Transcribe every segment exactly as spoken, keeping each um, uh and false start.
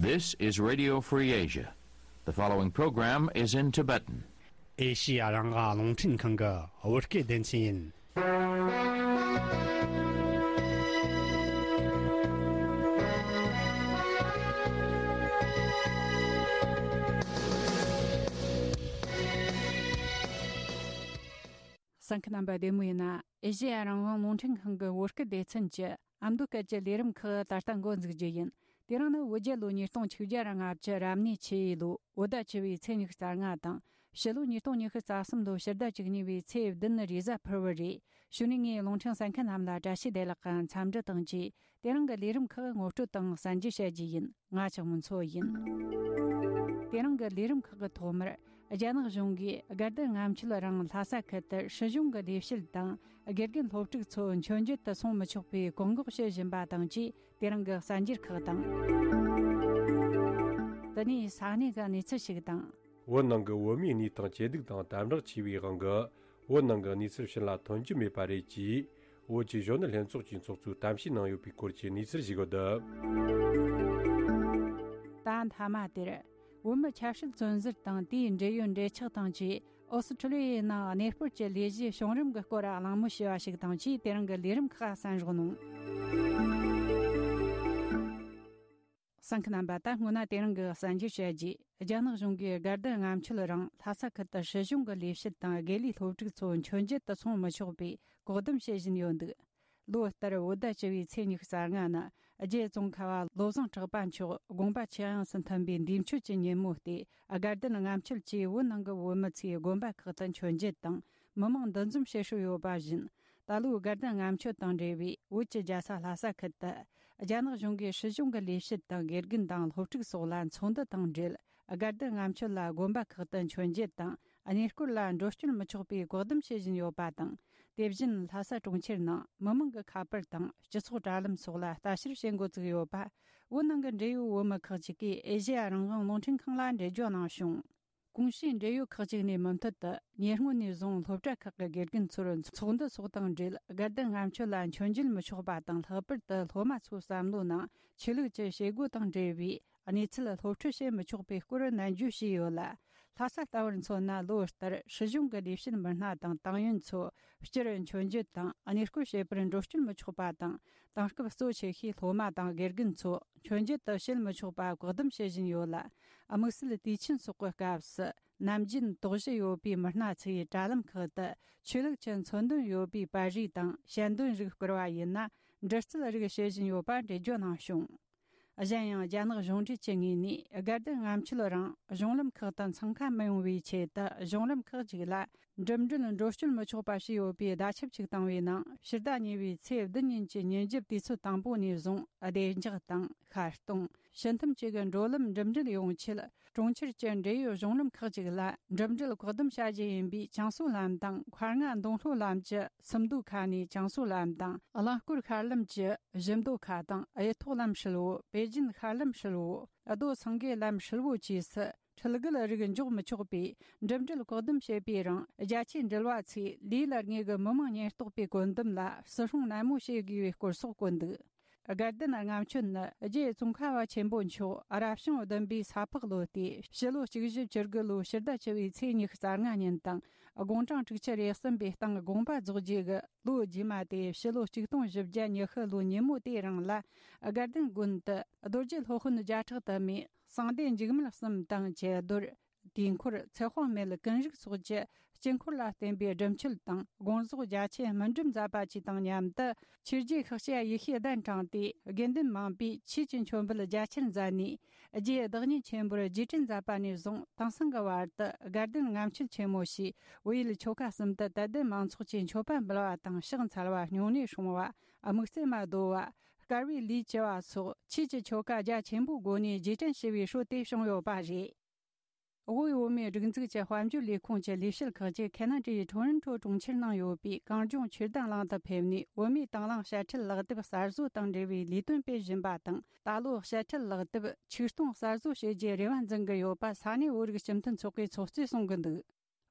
This is Radio Free Asia. The following program is in Tibetan. ཨེ་ཤི་ཡ་རང་དབང་རླུང་འཕྲིན་ཁང་གི་བོད་སྐད་སྡེ་ཚན་ཡིན། གསན་མཁན་རྣམ་པ་བདེ་མོ་ཡིན་ན། ཨེ་ཤི་ཡ་རང་དབང་རླུང་འཕྲིན་ཁང་གི་བོད་སྐད་སྡེ་ཚན་གྱི་ཨ་མདོ་སྐད་ཀྱི་ལས་རིམ་ཁག་ད་ལྟ་འགོ་འཛུགས་རྒྱུ་ཡིན། དེ་རིང་ནི་བོད་རྒྱལ་ལོ་ཉིས་སྟོང་ཆིག་བརྒྱ་ར་ལྔ་བཅུ་རབ་གནས་ཆུ་ཡོས་ལོ་བོད་ཟླ་བཅུ་བའི་ཚེས་ཉི་ཤུ་རྩ་ལྔ་དང་། ཕྱི་ལོ་ཉིས་སྟོང་ཉི་ཤུ་རྩ་གསུམ་ལོ་ཕྱི་ཟླ་བཅུ་གཉིས་པའི་ཚེས་བདུན་རེས་གཟའ་ཕུར་བུ་རེད། གཞུག་ནས་ངས་རླུང་འཕྲིན་གསན་མཁན་རྣམས་ལ་བཀྲ་ཤིས་བདེ་ལེགས་དང་འཚམས་འདྲི་དང་བཅས། དེ་རིང་གི་ལས་རིམ་ཁག་ངོ་སྤྲོད་དང་གསན་རྒྱུ་བྱ་རྒྱུ་ཡིན། ང་ཆགས་མོ་མཚོ་ཡིན། དེ་རིང་གི་ལས་རིམ་ཁག་གི་ཐོག་མར། རྒྱ་ནག་གཞུང་གིས་དགའ་ལྡན་ལྔ་མཆོད་རང་ལྷ་ས་ཁུལ་དུ་སྲིད་གཞུང་གི་ལས་བྱེད་དང་། དགེ་རྒན་སློབ་ཕྲུག་ཚོ་མཆོད་མཇལ་དུ་སོང་མི་ཆོག་པའི་བཀག་འགོག་བྱེད་བཞིན་པ་དང་བཅས། དེ་རིང་གི་གསར་འགྱུར་ཁག་དང་། དེ་ནས་ས་གནས་ཀྱི་གནས་ཚུལ་ཞིག་དང་། བོད་ནང་གི་བོད་མིའི་གནས་སྟངས་ཇེ་སྡུག་དང་དམ་དྲག་ཆེ་བའི་དབང་གིས། བོད་ནང་གི་གནས་ཚུལ་ཕྱི་ལ་ཐོན་རྒྱུ་མེད་པ་རེད་ཅེས། བོད་ཀྱི་གཞོན་ནུ་ལྷན་ཚོགས་ཀྱི་ཚོགས་གཙོས་གཏམ་བཤད་གནང་ཡོད་པའི་སྐོར་གྱི་གནས་ཚུལ་ཞིག་ཡོད། ད་མཐའ་མ་དེར། བོད་མི་ཆབ་སྲིད་བཙོན་ཟུར་དང་དེའི་འབྲེལ་ཡོད་འབྲེལ་ཆགས་དང་བཅས། ཨོ་སི་ཁྲུ་ལི་ཡའི་ནང་གནས་སྤོར་གྱི་ལས་གཞི་བྱུང་རིམ་གྱི་སྐོར་གླེང་མོལ་བྱས་པ་ཞིག་དང་བཅས། དེ་རིང་གི་ལས་རིམ་ཁག་གསན་རོགས་གནང་། གསན་མཁན་རྣམ་པ། ད་སྔོན་ན་དེ་རིང་གི་གསར་འགྱུར་བཤད་རྗེས། རྒྱ་ནག་གཞུང་གིས་དགའ་ལྡན་ལྔ་མཆོད་རིང་ལྷ་ས་ཁུལ་དུ་སྲིད་གཞུང་གི་ལས་བྱེད་དང་དགེ་ལས་སློབ་ཕྲུག་ཚོ་མཆོད་མཇལ་དུ་སོང་མི་ཆོག་པའི་བཀག་སྡོམ་བྱེད་བཞིན་ཡོད་འདུག་ལོ་ལྟར་བོད་ཟླ་བཅུ་བའི་ཚེས་ཉི་ཤུ་རྩ་ལྔ་ནི། རྒྱའི་ཙོང་ཁ་བ་བློ་བཟང་གྲགས་པ་མཆོག་དགོངས་པ་ཆེ་ཡངས་སུ་མཐུན་པའི་འདས་མཆོད་ཀྱི་ཉིན་མོ་སྟེ། དགའ་ལྡན་ལྔ་མཆོད་ཅེས་བོད་ནང་གི་བོད་མི་ཚོས་དགོན་པ་ཁག་ཏུ་མཆོད་མཇལ་དང་། མི་མང་འདུ་འཛོམས་བྱེད་སྲོལ་ཡོད་པ་བཞིན། ད་ལོའི་དགའ་ལྡན་ལྔ་མཆོད་དང་འབྲེལ་བའི་བོད་ཀྱི་རྒྱལ་ས་ལྷ་ས་ཁུལ་དུ། རྒྱ་ནག་གཞུང་གིས་སྲིད་གཞུང་གི་ལས་བྱེད་དང་དགེ་རྒན་དང་སློབ་ཕྲུག་སོགས་ལ་ཚོགས་འདུ་དང་འབྲེལ། དགའ་ལྡན་ལྔ་མཆོད་ལ་དགོན་པ་ཁག་ཏུ་མཆོད་མཇལ་དང་། གནས་སྐོར་ལ་འགྲོ་སྐྱོད་མི་ཆོག་པའི་བཀག་སྡོམ་བྱེད་བཞིན་ཡོད་པ་དང་། དེ་བཞིན་ལྷ་ས་གྲོང་ཁྱེར་ནང་མི་མང་གི་ཁ་པར་དང་སྤྱི་ཚོགས་དྲ་ལམ་སོགས་ལ་ལྟ་བཤེར་བྱེད་འགོ་བཙུགས་ཡོད་པ། བོད་ནང་གི་འབྲེལ་ཡོད་བོད་མི་ཁག་ཅིག་གིས་ཨེ་ཤེ་ཡ་རང་དབང་རླུང་འཕྲིན་ཁང་ལ་འགྲེལ་བརྗོད་གནང་བྱུང་། གོང་ཞུས་འབྲེལ་ཡོད་ཁག་ཅིག་ནས་མུ་མཐུད་དུ་ཉེ་སྔོན་ནས་བཟུང་སློབ་གྲྭ་ཁག་གི་དགེ་རྒན་ཚོར་ཚོགས་འདུ་སོགས་དང་འབྲེལ། དགའ་ལྡན་ལྔ་མཆོད་ལ་མཆོད་མཇལ་མི་ཆོག་པ་དང་། ལྷག་པར་དུ་སློབ་མ་ཚོའི་བསམ་བློའི་ནང་ཆོས་ལུགས་ཀྱི་བྱེད་སྒོ་དང་འབྲེལ་བའི་གནས་ཚུལ་སློབ་ཁྲིད་བྱེད་མི་ཆོག་པའི་སྐོར་ནན་བརྗོད་བྱས་ཡོད་ལ། ལྷ་ས་ལྟ་བུར་མཚོན་ན། ལོ་ལྟར་སྲིད་གཞུང་གི་ལས་བྱེད་མི་སྣ་དང་ཏང་ཡོན་ཚོ་སྤྱིར་མཆོད་མཇལ་དང་གནས་སྐོར་བྱེད་པར་འགྲོ་སྐྱོད་མི་ཆོག་པ་དང་། དེང་སྐབས་གཙོ་ཆེ་ཤོས་སློབ་མ་དང་དགེ་རྒན་ཚོ་མཆོད་མཇལ་དུ་བྱེད་མི་ཆོག་པ་བཀག་སྡོམ་བྱེད་བཞིན་ཡོད་ལ། དམིགས་བསལ་དུས་ཆེན་སོགས་ཀྱི་སྐབས་སུ་ནམ་རྒྱུན་དོགས་གཞི་ཡོད་པའི་མི་སྣ་ཚོས་དྲ་ལམ་ཁག་ཏུ་ཆོས་ལུགས་ཀྱི་མཚོན་དོན་ཡོད་པའི་པར་རིས་དང་ཞལ་འདོན་རིགས་བསྐུར་བ་ཡིན་ན། འདྲི་རྩད་རིགས་བྱེད་བཞིན་ཡོད་པ་འགྲེལ་བརྗོད་གནང་བྱུང་། གཞན་ཡང་། རྒྱ་ནག་གཞུང་འབྲེལ་གྱི་ངོས་ནས་དགའ་ལྡན་ལྔ་མཆོད་རིང་གཞུང་ལམ་ཁག་ཏུ་འཚང་ཁ་མི་ཡོང་བའི་ཆེད་དུ། གཞུང་ལམ་ཁག་ཅིག་ལ་འགྲིམ་འགྲུལ་འགྲོ་སྐྱོད་མི་ཆོག་པ་བྱས་ཡོད་པའི་བརྡ་ཁྱབ་ཅིག་བཏང་བའི་ནང་། ཕྱི་ཟླ་གཉིས་པའི་ཚེས་བདུན་ཉིན་གྱི་ཉིན་རྒྱབ་དུས་ཚོད་དང་པོ་ནས་བཟུང་། བདེ་འཇགས་དང་ཤར་གཏོང་། ཕྱི་ཐུམ་བཅས་ཀྱི་འགྲོ་ལམ་འགྲིམ་འགྲུལ་ཡོང་ཆེད། གྲོང་ཁྱེར་གྱི་འབྲེལ་ཡོད་གཞུང་ལམ་ཁག་ཅིག་ལ་འགྲིམ་འགྲུལ་བཀག་སྡོམ་བྱ་རྒྱུ་ཡིན་པའི་ཅང་སུའུ་ལམ་དང་། མཁར་རྔ་མདོང་ལྷོ་ལམ་གྱི་སུམ་མདོ་ཁ་ནས་ཅང་སུའུ་ལམ་དང་། རླངས་འཁོར་ཤར་ལམ་གྱི་བཞི་མདོ་ཁ་དང་། གཡུ་ཐོག་ལམ་ཧྲིལ་བོ། པེ་ཅིན་ཤར་ལམ་ཧྲིལ་བོ། རྡོ་སེང་གེ་ལམ་ཧྲིལ་བོ་བཅས་སུ་འཕྲུལ་རྒོལ་རིགས་འཇོག་མི་ཆོག་པའི་འགྲིམ་འགྲུལ་བཀག་སྡོམ་བྱས་པའི་རིང་། རྒྱ་ཆེའི་འགྲུལ་བ་ཚོས་ལས་ལ་དངོས་ཀྱི་མི་མང་ཉེན་རྟོག་པའི་བཀོད་འདོམས་ལ་བརྩི་སྲུང་ནན་མོ་བྱེད་དགོས་པའི་སྐོར་སོགས་བཀོད་འདུག་དགའ་ལྡན་ལྔ་མཆོད་ནི་རྗེ་ཙོང་ཁ་བ་ཆེན་པོ་མཆོག་རབ་བྱུང་བདུན་པའི་ས་ཕག་ལོ་སྟེ། ཕྱི་ལོ་གཅིག་བཞི་བཅུ་དགུ་ལོའི་ཕྱི་ཟླ་བཅུ་བའི་ཚེས་ཉི་ཤུ་རྩ་ལྔ་ཉིན་དང་། དགུང་གྲངས་དྲུག་ཅུ་རེ་གསུམ་པའི་སྟེང་དགོངས་པ་རྫོགས་རྗེས་ཀྱི་ལོ་རྗེས་མ་སྟེ། ཕྱི་ལོ་ཆིག་སྟོང་བཞི་བརྒྱ་ཉི་ཤུ་ལོའི་ཉིན་མོ་དེའི་རིང་ལ། དགའ་ལྡན་དགོན་དུ་རྡོ་རྗེ་སློབ་དཔོན་བརྒྱ་ཕྲག་དུ་མས་གསང་བདེ་འཇིགས་མེད་གསུམ་དང་། ཀྱེ་རྡོར། དུས་འཁོར། ཚེ་དཔག་མེད་ཀུན་རིག་སོགས་ཀྱི་དཀྱིལ་འཁོར་ལ་བརྟེན་པའི་སྒྲུབ་མཆོད་དང་། དགོངས་རྫོགས་རྒྱ་ཆེན་སྨིན་གྲུབ་མཛད་པ་བཅས་དང་མཉམ་དུ། ཆོས་རྗེ་ཤཱཀྱ་ཡེ་ཤེས་གདན་དྲངས་ཏེ། དགེ་འདུན་མང་པོས་ཆོས་ཀྱི་མཆོད་འབུལ་རྒྱ་ཆེར་མཛད་ནས། རྗེ་བདག་ཉིད་ཆེན་པོར་རྗེས་དྲན་མཛད་པ་ནས་བཟུང་། དེང་སང་གི་བར་དུ་དགའ་ལྡན་ལྔ་མཆོད་ཆེན་མོ་ཞེས་བོད་ཡུལ་ཆོལ་ཁ་གསུམ་དུ་དད་ལྡན་མང་ཚོགས་ཀྱིས་མཆོད་པ་འབུལ་བ་དང་། ཕྱག་འཚལ་བ། སྨྱུང་གནས་སྲུང་བ། དམིགས་བརྩེ་མ་བསྡོ་བ། དཀར་བའི་ལས་བགྱི་བ་སོགས་ཆོས་ཀྱི་ཆོ་ག་རྒྱ་ཆེན་པོའི་སྒོ་ནས་རྗེས་དྲན་ཞུ་བའི་སྲོལ་དེ་བྱུང་ཡོད་པ་རེད། དབུས་བོད་མིའི་སྒྲིག་འཛུགས་ཀྱི་དཔལ་འབྱོར་ལས་ཁུངས་ཀྱི་ལས་བྱེད་ཁག་ཅིག་ཁེ་ན་ཌའི་ཊོ་རོན་ཊོ་གྲོང་ཁྱེར་ནང་ཡོད་པའི་གངས་ལྗོངས་ཆོས་དར་གླིང་དུ་ཕེབས་ནས། བོད་མིའི་དང་བླངས་དཔྱ་ཁྲལ་ལག་དེབ་གསར་བཟོ་དང་འབྲེལ་བའི་ལས་དོན་སྤེལ་བཞིན་པ་དང་། ད་ལོ་དཔྱ་ཁྲལ་ལག་དེབ་ཆིག་སྟོང་གསར་བཟོ་བྱེད་རྒྱུའི་རེ་བ་འཛིན་གྱི་ཡོད་པ་ས་གནས་བོད་རིགས་སྤྱི་མཐུན་ཚོགས་པའི་ཚོགས་གཙོས་གསུང་གི་འདུག་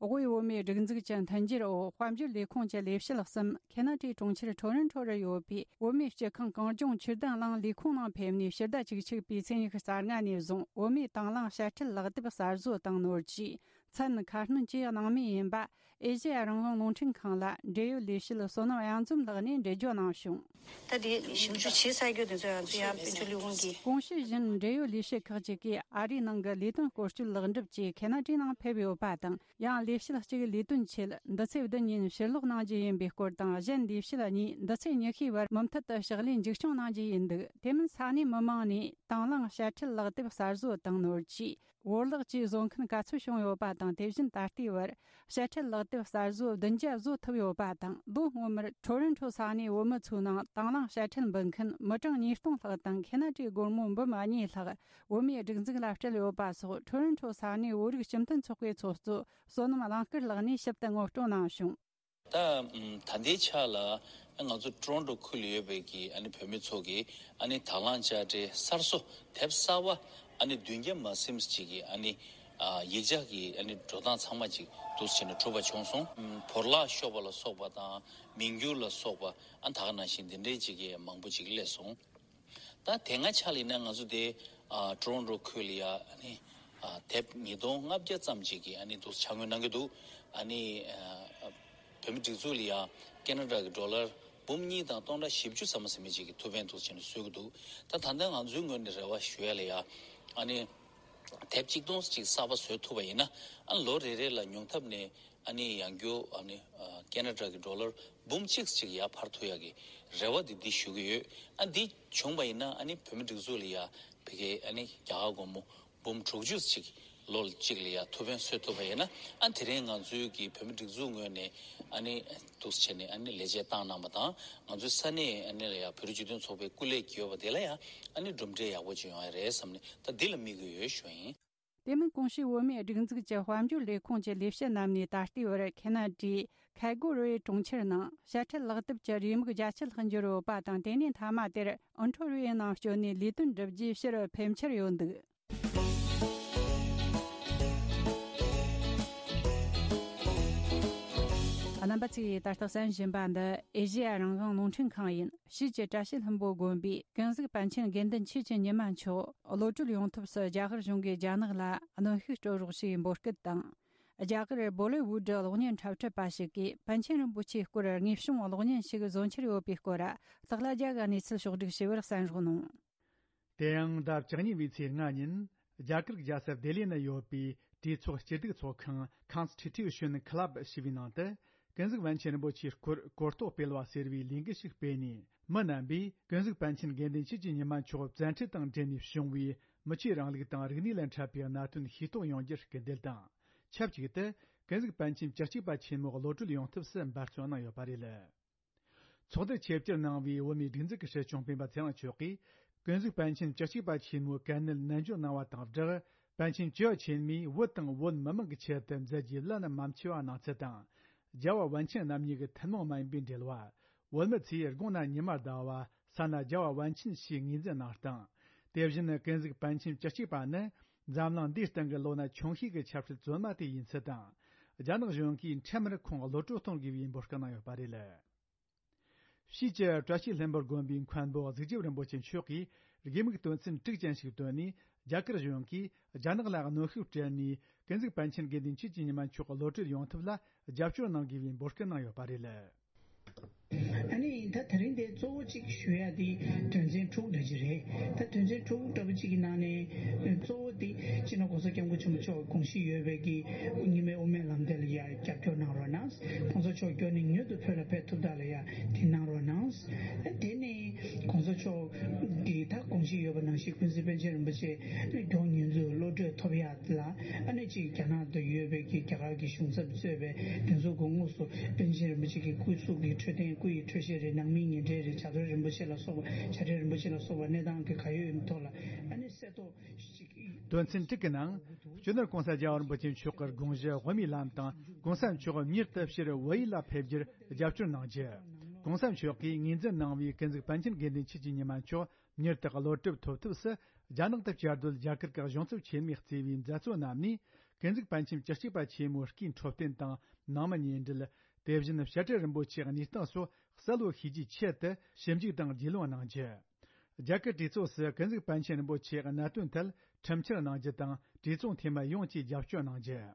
དབུས་བོད་མིའི་སྒྲིག་འཛུགས་ཀྱི་མཐུན་འགྱུར་འོག་དཔལ་འབྱོར་ལས་ཁུངས་ཀྱི་ལས་བྱེད་གསུམ་ཁེ་ན་ཌའི་གྲོང་ཁྱེར་ཊོ་རོན་ཊོ་རུ་ཡོད་པའི་བོད་མིའི་སྤྱི་ཁང་གངས་ལྗོངས་ཆུ་དན་གླིང་ལས་ཁུངས་ནང་ཕེབས་ནས་ཕྱི་ཟླ་བཅུ་གཅིག་པའི་ཚེས་ཉི་ཤུ་རྩ་ལྔ་ནས་བཟུང་བོད་མིའི་དང་བླངས་དཔྱ་ཁྲལ་ལག་དེབ་གསར་བཟོ་བཏང་ནོར་གྱིས་མཚན་ཁ་སྣོན་གྱི་གནང་མུས་ཡིན་པ། ཨེ་ཤེ་ཡ་རང་དབང་རླུང་འཕྲིན་ཁང་ལ་འབྲེལ་ཡོད་ལས་བྱེད་བསོད་ནམས་གཡང་འཛོམས་ལགས་ནས་འགྲེལ་བརྗོད་གནང་བྱུང་། ད་དེ་ཞིབ་འཇུག་བྱེད་ས་རྒྱུ་དེ་ཚོ་ཡང་ཚུར་ཡང་དཔལ་འབྱོར་ལས་ཁུངས་ཀྱིས། གོང་ཞུས་བཞིན་འབྲེལ་ཡོད་ལས་བྱེད་ཁག་ཅིག་གིས་ཨ་རིའི་ནང་གི་ལས་དོན་སྐོར་སྐྱོད་ལེགས་འགྲུབ་ཀྱིས་ཁེ་ན་ཌའི་ནང་ཕེབས་ཡོད་པ་དང་། ཡང་ལས་བྱེད་གཅིག་ལས་དོན་ཆེད་འདི་ཚེས་བདུན་ཉིན་ཕྱིར་ལོག་གནང་རྒྱུ་ཡིན་པའི་སྐོར་དང་། གཞན་ལས་བྱེད་གཉིས་འདི་ཚེས་ཉི་ཤུའི་བར་མུ་མཐུད་དུ་ཕྱག་ལས་མཇུག་སྐྱོང་གནང་རྒྱུ་ཡིན་འདུག་དེ་མིན་ས་གནས་མི་མང་ནས་དང་བླངས་དཔྱ་ཁྲལ་ལག་དེབ་གསར་བཟོ་བཏང་ནོར་གྱིས། བོར་བརླག་བཅས་བཟོ་མཁན་ག་ཚོད་བྱུང་ཡོད་པ་དང་། དེ་བཞིན་ད་ལྟའི་བར་དཔྱ་ཁྲལ་ལག་དེབ་གསར་བཟོ་བདུན་བརྒྱ་བཟོ་ཐུབ་ཡོད་པ་དང་། ལོ་སྔོན་མར་ཊོ་རོན་ཊོ་ས་གནས་བོད་མི་ཚོའི་ནང་དང་བླངས་དཔྱ་ཁྲལ་འབུལ་མཁན་མི་གྲངས་ཉིས་སྟོང་ལྷག་དང་། ཁེ་ན་ཌའི་སྒོར་མོ་འབུམ་གཉིས་ལྷག་བོད་མིའི་སྒྲིག་འཛུགས་ལ་སྤྲད་ཡོད་པ་སོགས། ཊོ་རོན་ཊོ་ས་གནས་བོད་རིགས་སྤྱི་མཐུན་ཚོགས་པའི་ཚོགས་གཙོ་བསོད་ནམས་གླིང་དཀར་ལགས་ནས་ཞིབ་ཏུ་ངོ་སྤྲོད་གནང་བྱུང་། ད་ད་ལྟའི་ཆ་ལ་ང་ཚོ་ཊོ་རོན་ཊོ་ཁུལ་ལ་ཡོད་པའི་གི་ཨ་ནི་བོད་མི་ཚོ་གི་ཨ་ནི་དང་བླངས་དཔྱ་ཁྲལ་གསར་བཟོ་དེབ་གསར་པ་ཨ་ནི་བདུན་བརྒྱ་མ་ཟིན་ཅིག་གི་ཨ་ནི་ཡིག་ཆ་གི་ཨ་ནི་འགྲོ་སྟངས་ཚང་མ་ཅིག་འདུག་སེ་བྱས་ནས་གྲུབ་པ་བྱུང་སོང་། བོར་བརླག་ཤོར་བ་ལ་སོགས་པ་དང་མིང་བསྒྱུར་ལ་སོགས་པ་ཨ་ནི་ད་ག་ནང་བཞིན་འདི་འདྲའི་ཅིག་གི་མང་པོ་ཅིག་སླེབས་སོང་། ད་དེ་སྔ་ཆ་ལ་ཡིན་ན་ང་ཚོ་དེ་ཨ་ཊོ་རོན་ཊོ་ཁུལ་ལ་ཡ་ཨ་ནི་ཨ་དེབ་ཉིས་སྟོང་ལྔ་བརྒྱ་ཙམ་ཅིག་གི་ཨ་ནི་འདུག་འཆར་ངོས་གནང་གི་འདུག་ཨ་ནི་ཨ་བོད་མི་སྒྲིག་འཛུགས་ལ་ཡ་ཁེ་ན་ཌ་གི་ཌོ་ལར་འབུམ་གཉིས་དང་སྟོང་ཕྲག་བཞི་བཅུ་ཙམ་ཟིན་མི་ཅིག་གི་ཐུགས་ཕན་འདུག་བྱས་ནས་གསོལ་གི་འདུག་ད་ད་ལྟ་ང་ཚོའི་ངོས་ནས་རེ་བ་ཞུ་ཡ་ལ་ཡ་ཨ་ནི་དེབ་གཅིག་སྟོང་ཅིག་གསར་པ་བཟོ་ཐུབ་པ་ཡིན་ན་ཨ་ལོ་རེ་རེ་ལ་ཉུང་མཐའ་ནས་ཨ་ནི་ཡང་སྐྱར་ཨ་ནི་ཨ་ཁེ་ན་ཌ་གི་ཌོ་ལར་འབུམ་གཅིག་ཅིག་ཡར་འཕར་ཐུབ་ཡག་གི་རེ་བ་འདི་འདི་ཞུ་གི་ཡོད། ཨ་འདི་བྱུང་བ་ཡིན་ན་ཨ་ནི་བོད་མི་སྒྲིག་འཛུགས་ལ་ཡ་ཕ་གི་ཨ་ནི་རྒྱ་གར་སྒོར་མོ་འབུམ་དྲུག་ཅུ་ཅིག་ལོ་གཅིག་ལ་ཡ་ཐུགས་ཕན་གསོས་ཐུབ་པ་ཡིན་ན་ཨ་དེ་རིང་ང་ཚོའི་གི་བོད་མི་སྒྲིག་འཛུགས་ངོས་ནས་ཨ་ནི་འདུག་སེ་བྱས་ནས་ཨ་ནི་ལས་བྱེད་བཏང་གནང་བ་དང་ང་ཚོའི་ས་གནས་ཨ་ནི་ལ་ཡ་བོད་རིགས་སྤྱི་མཐུན་ཚོགས་པའི་སྐུ་ལས་ཀྱི་ཡོད་པ་དེ་ལ་ཡ་ཨ་ནི་གྲུབ་འབྲས་ཡག་པོ་ཅིག་ཡོང་ཡ་རེད་བསམ་ནས་ད་འདི་ལ་དམིགས་ཀྱི་ཡོད་ཞུ་ཡིན། དེ་མིན་གོང་ཞུས་བོད་མིའི་སྒྲིག་འཛུགས་ཀྱི་དཔལ་འབྱོར་ལས་ཁུངས་ཀྱི་ལས་བྱེད་རྣམས་ནས་ད་ལྟའི་བར་ཁེ་ན་ཌའི་ཁ་སྒོ་རུའི་གྲོང་ཁྱེར་ནང་དཔྱ་ཁྲལ་ལག་དེབ་ཀྱི་རེའུ་མིག་བརྒྱ་ཆ་ལྷག་འབྱོར་ཡོད་པ་དང་། དེ་ནས་མཐའ་མ་དེར་ཨོན་ཊོ་རི་ཡོའི་ནང་བསྐྱོད་ནས་ལས་དོན་བསྒྲུབ་རྒྱུའི་ཕྱིར་ཕེབས་འཆར་ཡོད་འདུག་རྣམ་པ་ཚོས་ད་ལྟ་གསན་བཞིན་པ་འདི་ཨེ་ཤེ་ཡ་རང་དབང་རླུང་འཕྲིན་ཁང་ཡིན། ཕྱིས་ཀྱི་བཀྲ་ཤིས་ལྷུན་པོ་དགོན་པའི་ཀུན་གཟིགས་པཎ་ཆེན་དགེ་འདུན་ཆོས་ཀྱི་ཉི་མ་མཆོག་གློད་གྲོལ་ཡོང་ཐབས་སུ་རྒྱ་གར་གཞུང་གིས་རྒྱ་ནག་ལ་གནོན་ཤུགས་སྤྲོད་རོགས་ཞེས་འབོད་སྐུལ་དང་། རྒྱ་གར་བོ་ལི་ཝུ་ཌི་གློག་བརྙན་འཁྲབ་ཁྲིད་པ་ཞིག་གིས་པཎ་ཆེན་རིན་པོ་ཆེའི་སྐོར་དངོས་བྱུང་གློག་བརྙན་ཞིག་བཟོ་འཆར་ཡོད་པའི་སྐོར་སྟག་ལྷ་རྒྱལ་གྱི་གནས་ཚུལ་ཕྱོགས་བསྒྲིགས་ཞུ་བར་གསན་རོགས་གནང་། དེ་ཡང་ཟླ་བཅུ་གཉིས་པའི་ཚེས་ལྔ་ཉིན་རྒྱ་གར་རྒྱལ་ས་ལྡི་ལི་ན་ཡོད་པའི་གྲོས་ཚོགས་སྤྱི་སྡེ་ཚོགས་ཁང་Constitution Club ཞེས་པའི་ནང་དུ་ཀུན་གཟིགས་པཎ་ཆེན་རིན་པོ་ཆེའི་སྐོར་གོ་རྟོགས་སྤེལ་བ་ཟེར་བའི་ལས་འགུལ་ཞིག་སྤེལ་ནས། མི་རྣམ་པས་ཀུན་གཟིགས་པཎ་ཆེན་དགེ་འདུན་ཆོས་ཀྱི་ཉི་མ་མཆོག་བཙན་ཁྲིད་དང་འབྲེལ་ནས་བྱུང་བའི་མི་ཆོས་རིང་ལུགས་དང་རིག་གནས་ལ་འཕྲད་པའི་གནད་དོན་ཤེས་རྟོགས་ཡོང་རྒྱུར་སྐུལ་འདེད་དང་། ཆབས་ཅིག་ཏུ་ཀུན་གཟིགས་པཎ་ཆེན་བཅུ་གཅིག་པ་ཆེན་མོ་གློད་གྲོལ་ཡོང་ཐབས་སུ་འབད་བརྩོན་གནང་ཡོད་པ་རེད། ཚོགས་འདུར་ཆེད་བཅར་གནང་བའི་བོད་མིའི་སྒྲིག་འཛུགས་ཀྱི་སྲིད་སྐྱོང་སྤེན་པ་ཚེ་རིང་མཆོག་གིས་ཀུན་གཟིགས་པཎ་ཆེན་བཅུ་གཅིག་པ་ཆེན་མོའི་དཀའ་གནད་ནན་བརྗོད་གནང་བ་དང་སྦྲགས། པཎ་ཆེན་བཅུ་ཆེན་མོས་བོད་དང་བོད་མི་མང་གི་ཆེད་དུ་མཛད་རྒྱུའི་བླ་ན་མ་མཆིས་པ་གནང་ཚུལ་དང་། རྒྱལ་བ་པཎ་ཆེན་རྣམ་གཉིས་ཀྱི་ཐུན་མོང་མ་ཡིན་པའི་འབྲེལ་བ། བོད་མི་ཚོས་དགུང་ན་ཉི་མ་ཟླ་བ་ས་ན་རྒྱལ་བ་པཎ་ཆེན་ཞེས་ངོས་འཛིན་གནང་སྟངས། དེ་བཞིན་ཀུན་གཟིགས་པཎ་ཆེན་བཅུ་གཅིག་པ་ནི་འཛམ་གླིང་འདིའི་སྟེང་གི་ལོ་ན་ཆུང་ཤོས་ཀྱི་ཆབ་སྲིད་བཙོན་མ་དེ་ཡིན་ཚུལ་དང་། རྒྱ་ནག་གཞུང་གིས་འཕྲལ་མར་ཁོང་གློད་གྲོལ་གཏོང་དགོས་པའི་འབོད་སྐུལ་གནང་ཡོད་པ་རེད། ཕྱིས་ཀྱི་བཀྲ་ཤིས་ལྷུན་པོ་དགོན་པའི་མཁན་པོ་གཟུགས་ཆེན་རིན་པོ་ཆེ་མཆོག་གིས་དགེ་མིག་དོན་ཚན་དྲུག་ཅན་ཞིག་བཏོན་ནས། རྒྱ་གར་གཞུང་གིས་རྒྱ་ནག་ལ་གནོན་ཤུགས་སྤྲད་ནས་ཀུན་གཟིགས་པཎ་ཆེན་དགེ་འདུན་ཆོས་ཀྱི་ཉི་མ་མཆོག་གློད་གྲོལ་ཡོང་ཐབས་ལ་རྒྱབ་སྐྱོར་གནང་དགོས་པའི་འབོད་སྐུལ་གནང་ཡོད་པ་རེད། ཨ་ནི་ད་དེ་རིང་འདི་གཙོ་བོ་གཅིག་ཞུ་ཡ་འདི་དོན་ཚན་དྲུག་འདྲ་ཅིག་རེད། ད་དོན་ཚན་དྲུག་འདྲ་པོ་གཅིག་གི་ནང་ནས་གཙོ་བོ་འདི་སྤྱི་ནོར་༸གོང་ས་༸སྐྱབས་མགོན་ཆེན་པོ་མཆོག་དགོངས་བཞེས་ཡོད་པའི་གི་རྙིང་མའི་དབུ་མའི་ལམ་དེ་ལ་ཡ་རྒྱབ་སྐྱོར་གནང་རོགས་གནང་། ༸གོང་ས་མཆོག་མགྱོགས་ནས་མྱུར་དུ་བོད་ལ་ཕེབས་ཐུབ་ཐབས་ལ་ཡ་དེ་གནང་རོགས་གནང་། དེ་ནས་༸གོང་ས་མཆོག་གིས་ད་དགོངས་བཞེས་ཡོད་པ་ནང་བཞིན་ཀུན་གཟིགས་པཎ་ཆེན་རིན་པོ་ཆེ་མགྱོགས་མྱུར་དུ་གློད་གྲོལ་ཐོབ་ཡ་ལ་ཨ་ནི་གཅིག་རྒྱ་ནག་ཏུ་ཡོད་པའི་གི་རྒྱ་གར་གྱི་གཞུང་ཚབ་གཙོས་པའི་དེ་ཚོ་གི་དངོས་སུ་པཎ་ཆེན་རིན་པོ་ཆེ་གི་སྐུ་གཟུགས་ཀྱི་འཕྲོད་བསྟེན་སྐུ་ཡི་འཕྲོད་བཞེས་རེད། ནང་མིའི་ཉེ་འབྲེལ་རེད། བྱ་བྲལ་རིན་པོ་ཆེ་ལ་སོགས་པ་བྱ་བྲལ་རིན་པོ་ཆེ་ལ་སོགས་པ་གནས་སྟངས་ཀྱི་ག་ཡོད་ཡིན་ཐོག་ལ་ཨ་ནི་གསལ་ཐོ་ཞིག་དོན་ཚན་དྲུག་གི་ནང་། སྤྱི་ནོར་༸གོང་ས་༸རྒྱལ་བ་རིན་པོ་ཆེ་མཆོག་གི་དགོངས་གཞི་དབུ་མའི་ལམ་དང་༸གོང་ས་མཆོག་མྱུར་དུ་ཕྱིར་བོད་ཡུལ་ལ་ཕེབས་རྒྱུར་རྒྱབ་སྐྱོར་གནང་རྒྱུ། ༸གོང་ས་མཆོག་གིས་ངོས་འཛིན་གནང་བའི་ཀུན་གཟིགས་པཎ་ཆེན་དགེ་འདུན་ཆོས་ཀྱི་ཉི་མ་མཆོག་མྱུར་དུ་གློད་གྲོལ་ཐོབ་ཐབས་སུ་རྒྱ་ནག་ཏུ་བཅའ་སྡོད་རྒྱ་གར་གྱི་གཞུང་ཚབ་ཆེན་མོས་གཙོས་པའི་མཛད་གཙོ་རྣམས་ནས། ཀུན་གཟིགས་པཎ་ཆེན་བཅུ་གཅིག་པ་ཆེན་མོའི་སྐུའི་འཕྲོད་བསྟེན་དང་ནང་མི་གཉེན་འབྲེལ། དེ་བཞིན་བཤད་སྤྲུལ་རིན་པོ་ཆེའི་གནས་སྟངས་སོགས་གསལ་བོ་ཤེས་རྒྱུའི་ཆེད་དུ་ཞིབ་འཇུག་དང་རྒྱུས་ལོན་གནང་རྒྱུ། རྒྱ་གར་གྲོས་ཚོགས་སུ་ཀུན་གཟིགས་པཎ་ཆེན་རིན་པོ་ཆེའི་གནད་དོན་ཐད་ཁྲིམས་འཆར་གནང་རྒྱུ་དང་། གྲོས་ཚོགས་འཐུས་མི་ཡོངས་ཀྱིས་རྒྱབ་སྐྱོར་གནང་རྒྱུ།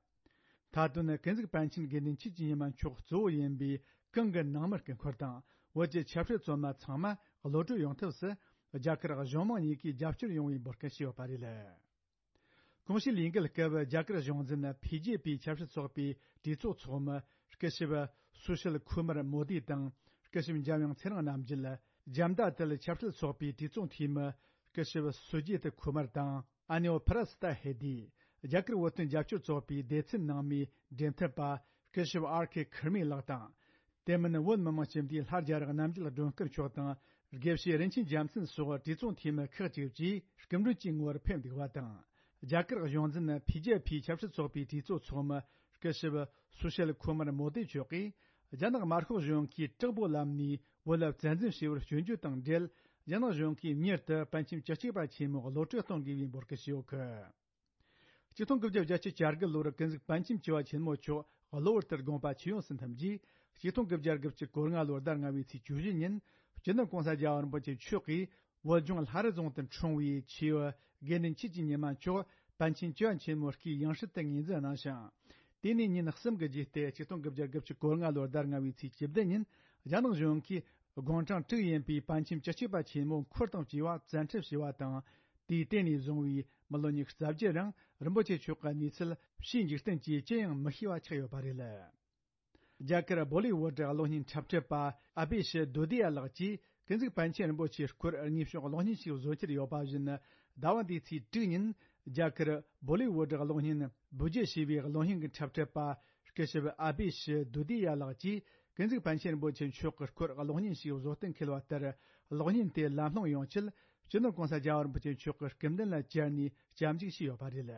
མཐའ་དོན་ནི་ཀུན་གཟིགས་པཎ་ཆེན་དགེ་འདུན་ཆོས་ཀྱི་ཉི་མ་མཆོག་གཙོ་བོ་ཡིན་པའི་གང་གི་ནང་མི་སྐུ་འཁོར་དང་། བོད་ཀྱི་ཆབ་སྲིད་བཙོན་མ་ཚང་མ་གློད་གྲོལ་ཡོང་ཐབས་སུ། རྒྱ་གར་གཞུང་མང་གཉིས་ཀས་རྒྱབ་སྐྱོར་ཡོང་བའི་འབོད་སྐུལ་ཞུས་ཡོད་པ་རེད། གོང་ཞུས་ལས་འགུལ་སྐབས་རྒྱ་གར་གཞུང་འཛིན་བྷི་ཇེ་པི་ཆབ་སྲིད་ཚོགས་པའི་གྲོས་ཚོགས་ཚོགས་མི་སྐུ་ཞབས་སུ་ཤིལ་ཁུ་མར་མོ་དི་དང་། སྐུ་ཞབས་འཇམ་དབྱངས་ཚེ་རིང་རྣམ་རྒྱལ། ཇཱན་ཏ་དལ་ཆབ་སྲིད་ཚོགས་པའི་གྲོས་ཚོགས་འཐུས་མི་སྐུ་ཞབས་སུ་ཇི་ཏ་ཁུ་མར་དང་། ཨ་ནེའོ་ཕ་ར་སི་ཏ་ཧེ་དི། རྒྱ་གར་བོད་དོན་རྒྱབ་སྐྱོར་ཚོགས་པའི་སྡེ་ཚན་ནང་མིའི་འབྲེལ་མཐུད་པ་སྐུ་ཞབས་ཨར་ཁེ་ཁུར་མི་ལགས་དང་། དེ་མིན་བོད་མི་མང་སྤྱི་འཐུས་ལྷ་རྒྱ་རི་རྣམ་རྒྱལ་སྒྲོལ་དཀར་མཆོག་དང་། དགེ་བཤེས་རིན་ཆེན་རྒྱལ་མཚན་སོགས་གྲོས་ཚོགས་འཐུས་མི་ཁག་ཅིག་བཅས་སྐུ་མགྲོན་གྱི་ངོ་བོར་ཕེབས་འདུག་པ་དང་། རྒྱ་གར་གཞུང་འཛིན་བྷི་ཇེ་པི་ཆབ་སྲིད་ཚོགས་པའི་གྲོས་ཚོགས་ཚོགས་མི་སྐུ་ཞབས་སུ་ཤལ་ཁོ་མར་མོ་དེ་མཆོག་གིས། རྒྱ་ནག་དམར་ཤོག་གཞུང་གིས་དྲག་པོའི་ལམ་ནས་བོད་ལ་བཙན་འཛུལ་བྱས་པར་སྐྱོན་བརྗོད་དང་འབྲེལ། རྒྱ་ནག་གཞུང་གིས་མྱུར་དུ་པཎ་ཆེན་བཅུ་གཅིག་པ་ཆེན་མོ་གློད་གྲོལ་གཏོང་དགོས་པའི་འབོད་སྐུལ་ཞུས་ཡོད་གི། ཆིག་སྟོང་དགུ་བརྒྱ་བརྒྱད་ཅུ་གྱ་དགུ་ལོར་ཀུན་གཟིགས་པཎ་ཆེན་བཅུ་བ་ཆེན་མོ་མཆོག་གློ་བུར་དུ་དགོངས་པ་ཆིབས་ཡོངས་སུ་འཐིམས་རྗེས། ཆིག་སྟོང་དགུ་བརྒྱ་དགུ་བཅུ་གོ་ལྔ་ལོའི་ཟླ་ལྔ་པའི་ཚེས་བཅུ་བཞི་ཉིན། སྤྱི་ནོར་༸གོང་ས་༸རྒྱལ་བ་རིན་པོ་ཆེ་མཆོག་གིས་བོད་ལྗོངས་ལྷ་རི་རྫོང་དུ་འཁྲུངས་པའི་ཆེས་བུ་དགེ་འདུན་ཆོས་ཀྱི་ཉི་མ་མཆོག་པཎ་ཆེན་བཅུ་བ་ཆེན་མོའི་སྐུའི་ཡང་སྲིད་དུ་ངོས་འཛིན་གནང་ཞིང་། དེ་ནས་ཉིན་གསུམ་གྱི་རྗེས་ཏེ་ཆིག་སྟོང་དགུ་བརྒྱ་དགུ་བཅུ་གོ་ལྔ་ལོའི་ཟླ་ལྔ་པའི་ཚེས་བཅུ་བདུན་ཉིན། རྒྱ་ནག་གཞུང་གིས་དགུང་གྲངས་དྲུག་ཡིན་པའི་པཎ་ཆེན་བཅུ་གཅིག་པ་ཆེན་མོ་འཁོར་དང་བཅས་པ་བཙན་ཁྲིད་བྱས་པ་དང་། དེའི་སྟེང་ནས་བཟུང་བའི་མི་ལོ་ཉི་ཤུ་རྩ་བརྒྱད་རིང་རིན་པོ་ཆེ་མཆོག་གི་གནས་ཚུལ་ཕྱིའི་འཇིག་རྟེན་གྱིས་ཅི་ཡང་མི་ཤེས་པ་ཆགས་ཡོད་པ་རེད། རྒྱ་གར་བོ་ལི་ཝུ་ཌི་གློག་བརྙན་འཁྲབ་ཁྲིད་པ་ཨ་བྷི་ཤི་དུ་དི་ཡ་ལགས་ཀྱིས་ཀུན་གཟིགས་པཎ་ཆེན་རིན་པོ་ཆེའི་སྐོར་དངོས་བྱུང་གློག་བརྙན་ཞིག་བཟོ་འཆར་ཡོད་པ་བཞིན། ཟླ་བ་འདིའི་ཚེས་དྲུག་ཉིན་རྒྱ་གར་བོ་ལི་ཝུ་ཌི་གློག་བརྙན་བུ་ཇེ་ཞེས་པའི་གློག་བརྙན་གྱི་འཁྲབ་ཁྲིད་པ་སྐུ་ཞབས་ཨ་བྷི་ཤི་དུ་དི་ཡ་ལགས་ཀྱིས་ཀུན་གཟིགས་པཎ་ཆེན་རིན་པོ་ཆེ་མཆོག་གི་སྐོར་གློག་བརྙན་ཞིག་བཟོ་གཏན་འཁེལ་བ་ལྟར། གློག་བརྙན་དེ་ལམ་ལྷོང་ཡོང་ཆེད་སྤྱི་ནོར་༸གོང་ས་༸རྒྱལ་བ་རིན་པོ་ཆེ་མཆོག་གི་སྐུ་མདུན་ལ་བཅར་ནས་སྐྱབས་འཇུག་ཞུས་ཡོད་པ་རེད།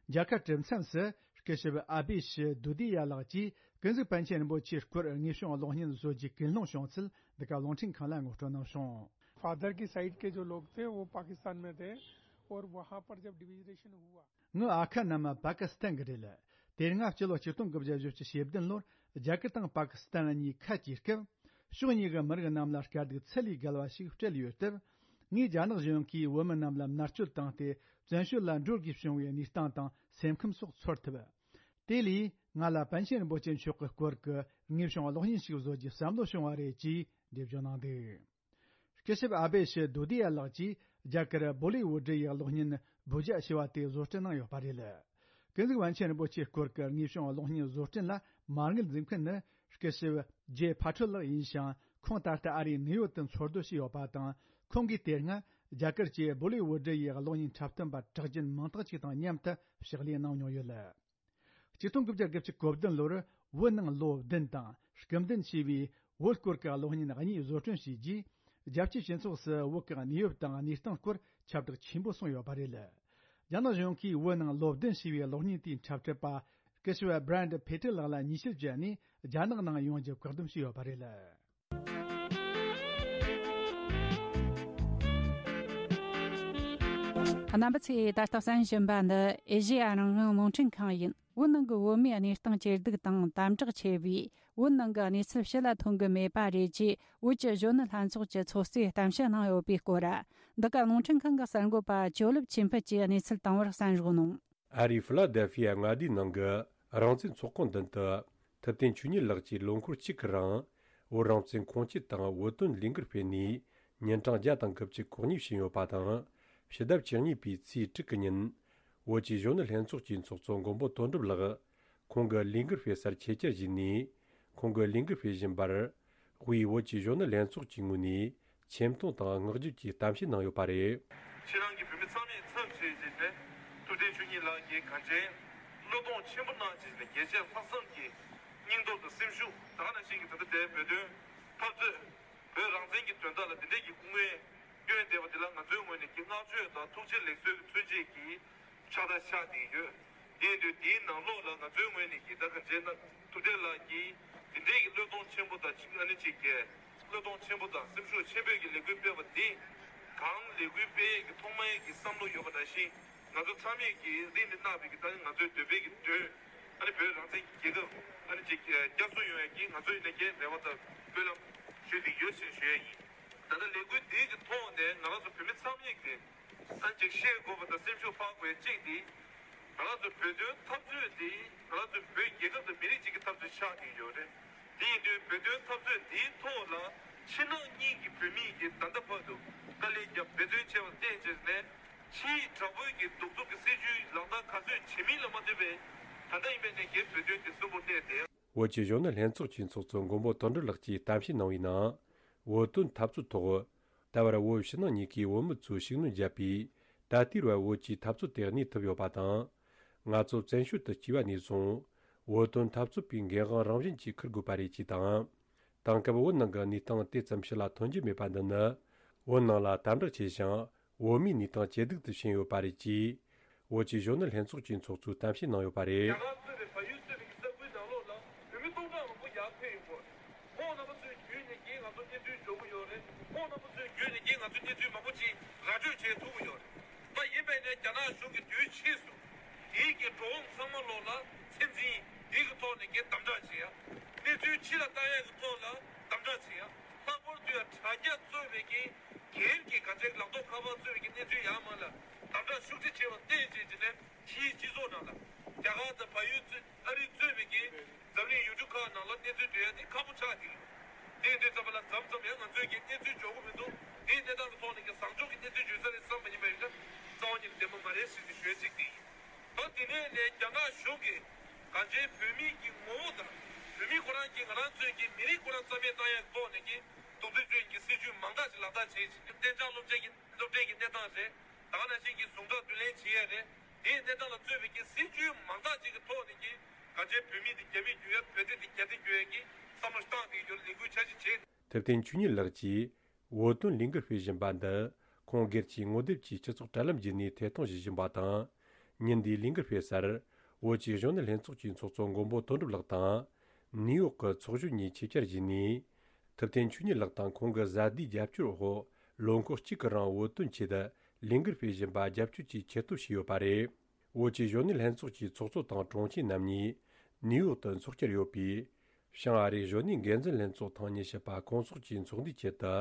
རྒྱལ་ཁབ་གྲོས་མཚམས་སུ་སྐུ་ཞབས་ཨ་བྷི་ཤི་དུ་དི་ཡ་ལགས་ཀྱིས་ཀུན་གཟིགས་པཎ་ཆེན་རིན་པོ་ཆེའི་སྐོར་དངོས་བྱུང་གློག་བརྙན་བཟོ་རྒྱུའི་ཀུན་སློང་བྱུང་ཚུལ་འདི་ག་རླུང་འཕྲིན་ཁང་ལ་ངོ་སྤྲོད་གནང་བྱུང་། फादर की साइड के जो लोग थे वो पाकिस्तान में थे और वहाँ पर जब डिवीजरेशन हुआ। ངའི་ཨ་ཁ་རྣམས་པ་ཀི་སི་ཐན་གྱི་རེད། དེ་སྔ་སྤྱི་ལོ་ཆིག་སྟོང་དགུ་བརྒྱ་བཞི་བཅུ་ཞེ་བདུན་ལོར་རྒྱ་གར་དང་པ་ཀི་སི་ཐན་གཉིས་ཁ་གྱེས་སྐབས། ཕྱོགས་གཉིས་ཀྱི་མི་རིགས་རྣམས་ལ་དཀའ་སྡུག་ཚད་ལས་བརྒལ་བ་ཞིག་སྤྲད་ཡོད་སྟབས། ངས་རྒྱ་ནག་གཞུང་གིས་བོད་མི་རྣམས་ལ་མནར་གཅོད་བཏང་སྟེ་བཙན་བྱོལ་ལ་འགྲོ་དགོས་བྱུང་བའི་གནས་སྟངས་དང་སེམས་ཁམས་སོགས་ཚོར་ཐུབ། དེ་ལས་ང་ལ་པཎ་ཆེན་རིན་པོ་ཆེ་མཆོག་གི་སྐོར་གྱི་དངོས་བྱུང་གློག་བརྙན་ཞིག་བཟོ་རྒྱུའི་བསམ་བློ་བྱུང་བ་རེད་ཅེས་འགྲེལ་བརྗོད་གནང་འདུག་སྐུ་ཞབས་ཨ་བྷི་ཤི་དུ་དི་ཡ་ལགས་ཀྱིས་རྒྱ་གར་བོ་ལི་ཝུ་ཌི་ཡི་གློག་བརྙན་བུ་ཇ་ཞེས་པ་དེ་བཟོ་སྐྲུན་གནང་ཡོད་པ་རེད། ཀུན་གཟིགས་པཎ་ཆེན་རིན་པོ་ཆེའི་སྐོར་གྱི་དངོས་བྱུང་གློག་བརྙན་བཟོ་སྐྲུན་ལ་མ་དངུལ་འཛིན་མཁན་ནི་སྐུ་ཞབས་ཇེ་ཕ་ཁྲོད་ལགས་ཡིན་ཞིང་། ཁོང་ད་ལྟ་ཨ་རིའི་ནིའུ་ཡོག་ཏུ་འཚོ་སྡོད་བྱས་ཡོད་པ་དང་། ཁོང་གིས་དེ་སྔ་རྒྱ་གར་གྱི་བོ་ལི་ཝུ་ཌི་ཡི་གློག་བརྙན་འཁྲབ་སྟོན་པ་གྲགས་ཅན་མང་དག་ཅིག་དང་མཉམ་དུ་ཕྱག་ལས་གནང་མྱོང་ཡོད། ཆིག་སྟོང་དགུ་བརྒྱ་དགུ་བཅུ་གོ་བདུན་ལོར་བོད་ནང་ལོ་བདུན་དང་སྐུ་མདུན་ཞེས་པའི་བོད་སྐོར་གྱི་གློག་བརྙན་གཉིས་བཟོ་སྐྲུན་བྱས་རྗེས། རྒྱལ་སྤྱིའི་སྤྱི་ཚོགས་སུ་བོད་ཀྱི་གནས་བབ་དང་གནས་སྟངས་སྐོར་ཁྱབ་བསྒྲགས་ཆེན་པོ་སོང་ཡོད་པ་རེད། རྒྱ་ནག་གཞུང་གིས་བོད་ནང་ལོ་བདུན་ཞེས་པའི་གློག་བརྙན་དེའི་འཁྲབ་ཁྲིད་པ་སྐུ་ཞབས་བྷི་རན་ཌི་ཕེ་ཏྲི་ལགས་ལ་ཉེས་ཆད་བཅད་ནས་རྒྱ་ནག་ནང་ཡོང་རྒྱུ་བཀག་སྡོམ་བྱས་ཡོད་པ་རེད། རྣམ་པ་ཚོས་ད་ལྟ་གསན་བཞིན་པ་འདི་ཨེ་ཤེ་ཡ་རང་དབང་རླུང་འཕྲིན་ཁང་ཡིན། བོད་ནང་གི་བོད་མིའི་གནས་སྟངས་ཇེ་སྡུག་དང་དམ་དྲག་ཆེ་བས། བོད་ནང་གི་གནས་ཚུལ་ཕྱི་ལ་ཐོན་གི་མེད་པ་རེད་ཅེས་བོད་ཀྱི་གཞོན་ནུ་ལྷན་ཚོགས་ཀྱི་ཚོགས་གཙོས་གཏམ་བཤད་གནང་ཡོད་པའི་སྐོར། འདི་ག་རླུང་འཕྲིན་ཁང་གི་གསར་འགོད་པ་ཇོ་ལེབ་ཆོས་འཕེལ་གྱིས་གནས་ཚུལ་བཏང་བར་གསན་རོགས་གནང་། ཨ་རིའི་ཕི་ལ་དེལ་ཕི་ཡ་མངའ་སྡེའི་ནང་གི་རང་བཙན་ཚོགས་ཁང་མདུན་དུ། ཐུབ་བསྟན་ཆོས་ཉིད་ལགས་ཀྱིས་ལོ་འཁོར་གཅིག་གི་རིང་བོད་རང་བཙན་ཁུངས་སྐྱེལ་དང་བོད་དོན་ལས་འགུལ་སྤེལ་ནས་ཉིན་གྲངས་བརྒྱ་དང་དགུ་བཅུ་གོ་གཉིས་ཕྱིན་ཡོད་པ་དང་། ཕྱི་ཟླ་བཅུ་གཉིས་པའི་ཚེས་དྲུག་གི་ཉིན། བོད་ཀྱི་གཞོན་ནུ་ལྷན་ཚོགས་ཀྱི་ཚོགས་གཙོ་མགོན་པོ་དོན་གྲུབ་ལགས་ཁོང་གི་ལས་འགུལ་སྤེལ་སར་ཆེད་བཅར་ཞུས་ནས། ཁོང་གི་ལས་འགུལ་སྤེལ་བཞིན་པར། དབུས་བོད་ཀྱི་གཞོན་ནུ་ལྷན་ཚོགས་ཀྱི་ངོས་ནས་ཆེ་མཐོང་དང་བསྔགས་བརྗོད་ཀྱི་གཏམ་བཤད་གནང་ཡོད་པ་རེད། ཁྱེད་རང་གི་བོད་མི་ཚང་མས་མཚམས་བཞག་བྱས་ནས་ཐུབ་བསྟན་ཆོས་ཉིད་ལགས་ཀྱིས་གངས་ཅན་བློས་གཏོང་ཆེན་པོ་གནང་བྱས་ནས་རྒྱལ་གཅེས་ལྷག་བསམ་གྱི་སྙིང་སྟོབས་དང་སེམས་ཤུགས། ད་ག་ནང་བཞིན་གྱི་ད་ལྟ་དེ་བོད་དོན་འཐབ་རྩོད། བོད་རང་བཙན་གྱི་དོན་དག་ལ་འདི་འདྲའི་གི་སྐུ་ངལ་བསྐྱོན་བསྡད་པ་འདི་ལ་ང་ཚོའི་ངོས་ནས་ཀྱི་བསྔགས་བརྗོད་དང་ཐུགས་རྗེ་ལེགས་གསོལ་གྱི་མཚོན་བྱེད་ཀྱི་ཕྱག་རྟགས་ཕྱག་བསྟན་ཡོད། དེ་ཡིན་དུས་དེའི་ནང་ལོགས་ལ་ང་ཚོའི་ངོས་ནས་ཀྱི་ད་ག་འཇལ་ན་ཐུབ་བསྟན་ལགས་ཀྱིས་དེ་འདྲའི་གི་བློས་གཏོང་ཆེན་པོ་དང་ཅིག་ཨ་ནི་ཅིག་གི་བློས་གཏོང་ཆེན་པོ་དང་སེམས་ཤུགས་ཆེན་པོས་ཀྱི་ལས་འགུལ་སྤེལ་བ་འདི་གང་ལས་འགུལ་སྤེལ་ཡས་ཀྱི་ཐོག་མ་ཡས་ཀྱི་བསམ་བློ་ཡོད་པ་ནང་བཞིན། ང་ཚོ་ཚང་མས་ཀྱི་རིང་ནས་གནང་བའི་གི་ད་ང་ཚོའི་འདོད་པའི་གི་དོན། ཨ་ནི་བོད་རང་བཙན་གྱི་རྒྱལ་ཁབ་ཨ་ནི་ཅིག་བསྐྱར་གསོ་ཡོང་ཡ་གི་ང་ཚོའི་ནས་ཀྱི་རེ་བ་དང་སྨོན་ལམ་ཞུས་ཏེ་ཡོད་ཞེས་ཞུ་ཡ་ཡིན། ད་ལྟ་ལས་འགུལ་འདིའི་གི་ཐོག་ནས་ང་རང་ཚོ་བོད་མི་ཚང་མས་ཀྱི་ཨ་ནི་ཅིག་ཤེས་དགོས་པ་དང་སེམས་ཤུགས་འཕར་དགོས་ཡ་གཅིག་དེ། ང་རང་ཚོ་བོད་དོན་འཐབ་རྩོད་དེ་ང་རང་ཚོ་བོད་རྒྱལ་ཁབ་དང་མི་རིགས་གཅིག་གི་འཐབ་རྩོད་ཆགས་ཀྱི་ཡོད་རེད། དེ་ཡིན་དུས་བོད་དོན་འཐབ་རྩོད་འདིའི་ཐོག་ལ་ཕྱི་ནང་གཉིས་ཀྱི་བོད་མི་ཡིན་གྱི་ད་ལྟ་བར་དུ་དཀའ་ལས་བརྒྱབ་འབད་བརྩོན་བྱས་པ་བརྟེན་བྱས་ནས་ཕྱིའི་དྲག་པོའི་གི་གདུག་རྩུབ་ཀྱི་སྲིད་བྱུས་ལག་བསྟར་ག་ཚོད་བྱེད་མིན་ལ་མ་ལྟོས་པའི་ད་ལྟ་ཡིན་པའི་ནས་ཀྱི་བོད་དོན་དེ་གསོན་པོར་གནས་ཏེ། བོད་ཀྱི་གཞོན་ནུ་ལྷན་ཚོགས་ཀྱི་ཚོགས་གཙོ་མགོན་པོ་དོན་གྲུབ་ལགས་ཀྱིས་གཏམ་བཤད་གནང་བའི་ནང་། བོད་དོན་འཐབ་རྩོད་ཐོག་ད་བར་བོད་ཕྱི་ནང་གཉིས་ཀའི་བོད་མི་ཚོས་ཤུགས་སྣོན་བརྒྱབ་པས་ད་ལྟའི་བར་བོད་ཀྱི་འཐབ་རྩོད་དེ་གནས་ཐུབ་ཡོད་པ་དང་། ང་ཚོ་བཙན་བྱོལ་དུ་སྐྱེས་པ་ནས་བཟུང་བོད་དོན་འཐབ་རྩོད་པའི་འགན་དབང་རང་བཞིན་གྱིས་འཁུར་དགོས་པ་རེད་ཅེས་དང་། དེང་སྐབས་བོད་ནང་གི་གནས་སྟངས་དེ་ཙམ་ཕྱི་ལ་ཐོན་གྱི་མེད་པ་འདི་ནི་བོད་ནང་ལ་དམ་དྲག་ཆེ་ཞིང་བོད་མིའི་གནས་སྟངས་ཇེ་སྡུག་ཏུ་ཕྱིན་ཡོད་པ་རེད་ཅེས་བོད་ཀྱི་གཞོན་ནུ་ལྷན་ཚོགས་ཀྱི་ཚོགས་གཙོས་གཏམ་བཤད་གནང་ཡོད་པ་རེད། རྒྱ་གར་གཙོས་པའི་བལ་ཡུལ་གཙོས་པའི་ས་ཁུལ་ནང་ལོགས་ལ་བོད་མི་སྟོང་ཕྲག་མང་པོ་ཡར་ཕེབས་ཡོད་པ་རེད། ཁོང་རྣམ་པ་ཚོའི་བརྒྱུད་ནས་ཀྱིས་ང་ཚོ་གནས་ཚུལ་འབྱོར་གྱི་ཡོད་རེད། ཁོང་རྣམ་པ་ཚོའི་བརྒྱུད་ནས་ཀྱིས་ང་ཚོ་གནས་ཚུལ་མང་པོ་ཅིག་ར་སྤྲོད་བྱེད་ཐུབ་ཀྱི་ཡོད་རེད། ད་ཡིན་པས་ནས་རྒྱ་ནག་གཞུང་གིས་དུས་ཕྱིས་སུ་དེའི་གི་འགྲོ་འོང་ཚང་མ་ལོགས་ལ་ཚད་འཛིན་དེའི་གི་ཐོག་ནས་ཀྱིས་དམ་དྲག་བྱེད་ཡ། གནས་ཚུལ་ཕྱི་ལ་བཏང་ཡ་གི་ཐོག་ལ་དམ་དྲག་བྱེད་ཡ། ལྷག་པར་དུ་ཡ་དྲ་རྒྱ་གཙོས་པའི་གི་སྒེར་གྱི་ག་ཚད་ལག་ཐོགས་ཁ་པར་གཙོས་པའི་གི་གནས་ཚུལ་ཡར་མར་ལ་དམ་དྲག་ཤུགས་ཆེ་བྱས་པ་བརྟེན་བྱས་ཀྱི་ནས་ཕྱིའི་སྤྱི་ཚོགས་ནང་ལ་རྒྱ་གར་དང་བལ་ཡུལ་གཙོས་ཨ་རི་གཙོས་པའི་གི་འཛམ་གླིང་ཡུལ་གྲུ་ཁག་ནང་ལ་གནས་ཚུལ་སྤྲོད་ཡ་དེ་ཁག་པོ་ཆགས་ཀྱི་ཡོད། དེ་ཡིན་དུས་ཙམ་པ་ལ་མཚམས་མཚམས་ཡང་ང་ཚོས་ཀྱི་གནས་ཚུལ་འབྱོར་གྱི་མི་འདུག་དེའི་གནས་སྟངས་ཀྱི་ཐོག་ནས་ཀྱི་བཟང་ཕྱོགས་ཀྱི་གནས་ཚུལ་བརྗོད་ས་རེད་བསམ་པ་ཡིན་པ་ཡིན་ན་རྩ་བ་ཉིད་ནས་བདེན་པ་མ་རེད་ཟེར་ཏེ་ཞུ་ཡ་གཅིག་དེ་ཡིན། ད་དེ་ནས་ནས་རྒྱ་ནག་གཞུང་གིས་གང་ཅི་བོད་མི་གི་ངོ་བོ་དང་། བོད་མི་ཁོ་རང་གིས་ང་རང་ཚོའི་གི་མི་རིགས་ཁོ་རང་རྩ་མེད་བཏང་ཡག་ཐོག་ནས་ཀྱི་གདུག་རྩུབ་སྤྱོད་ཀྱི་སྲིད་ཇུས་མང་དག་ཅིག་ལག་བསྟར་བྱས་ཤིང་གཏན་འཇགས་སློབ་གྲྭའི་གི་སློབ་གྲྭའི་གི་གནས་སྟངས་རེད། ད་ག་ནང་བཞིན་གྱི་ཟུངས་ཁྲག་བསྡུ་ལེན་བྱེད་ཡས་རེད། དེའི་གནས་སྟངས་ལ་གཙོས་པའི་གི་སྲིད་ཇུས་མང་དག་ཅིག་གི་ཐོག་ནས་ཀྱི་གང་ཅི་བོད་མི་དེ་རྒྱ་མི་བརྒྱུད་ཡ་བོད་དེ་དེ་རྒྱ་དེ་བརྒྱུད་ཡ་གི་བསམ་བློ་བཏང་སྟེ་ཡོད་ལས་འགུལ་འཆར་གཞི་བྱས། ཐུབ་བསྟན་ཆོས་ཉིད་ལགས་ཀྱིས་བོད་དོན་ལས་འགུལ་སྤེལ་བཞིན་པ་འདི་ཁོང་སྒེར་གྱིས་ངོ་དེབ་ཀྱི་སྤྱི་ཚོགས་དྲ་ལམ་བརྒྱུད་ནས་ཐད་གཏོང་བྱེད་བཞིན་པ་དང་། ཉིན་འདིའི་ལས་འགུལ་སྤེལ་སར་བོད་ཀྱི་གཞོན་ནུ་ལྷན་ཚོགས་ཀྱི་ཚོགས་གཙོ་མགོན་པོ་དོན་གྲུབ་ལགས་དང་། ནིའུ་ཡོག་གི་ཚོགས་གཞོན་གཉིས་ཆེད་བཅར་བྱས་ནས། ཐུབ་བསྟན་ཆོས་ཉིད་ལགས་དང་ཁོང་གི་བཟའ་ཟླའི་རྒྱབ་སྐྱོར་འོག་ལོ་འཁོར་གཅིག་གི་རིང་བོད་དོན་ཆེད་དུ་ལས་འགུལ་སྤེལ་བཞིན་པ་རྒྱབ་སྐྱོར་གྱི་ཆེད་དུ་ཞུས་ཡོད་པ་རེད། བོད་ཀྱི་གཞོན་ནུ་ལྷན་ཚོགས་ཀྱི་ཚོགས་གཙོ་དང་དྲུང་ཆེ་རྣམ་གཉིས་ནིའུ་ཡོག་ཏུ་འཚོགས་བཅར་ཡོད་པས། བྱང་ཨ་རིའི་གཞོན་ནུའི་འགན་འཛིན་ལྷན་ཚོགས་ཐེངས་ཉི་ཤུ་པ་སྐོང་ཚོགས་ཀྱི་ཚོགས་འདུའི་ཆེད་དུ།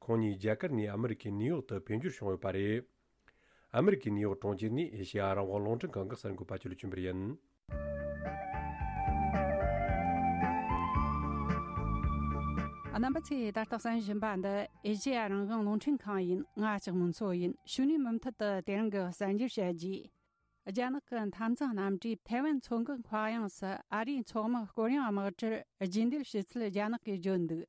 ཁོང་གཉིས་རྒྱ་གར་ནས་ཨ་མི་རི་ཀའི་ནིའུ་ཡོག་ཏུ་ཕེབས་འབྱོར་བྱུང་ཡོད་པ་རེད། ཨ་མི་རི་ཀའི་ནིའུ་ཡོག་གྲོང་ཁྱེར་ནས་ཨེ་ཤེ་ཡ་རང་དབང་རླུང་འཕྲིན་ཁང་གི་གསར་འགོད་པ་ཆོས་ལ་ཆོས་འཕེལ་ཡིན། རྣམ་པ་ཚོས་ད་ལྟ་གསན་བཞིན་པ་འདི་ཨེ་ཤེ་ཡ་རང་དབང་རླུང་འཕྲིན་ཁང་ཡིན། ང་ལྕགས་མོ་མཚོ་ཡིན། ཕྱི་ནས་མུ་མཐུད་དུ་དེ་རིང་གི་གསར་འགྱུར་བཤད་རྒྱུ། རྒྱ་ནག་གི་འཐབ་འཛིང་རྣམ་གྲྭས་ཐའེ་ཝན་མཚོ་འགག་མཁའ་དབྱིངས་སུ་ཨ་རིའི་མཚོ་དམག་སྐོར་གཡེང་དམག་གྲུར་རྒྱུན་སྡོད་བྱེད་ཚུལ་རྒྱ་ནག་གིས་བརྗོད་འདུག་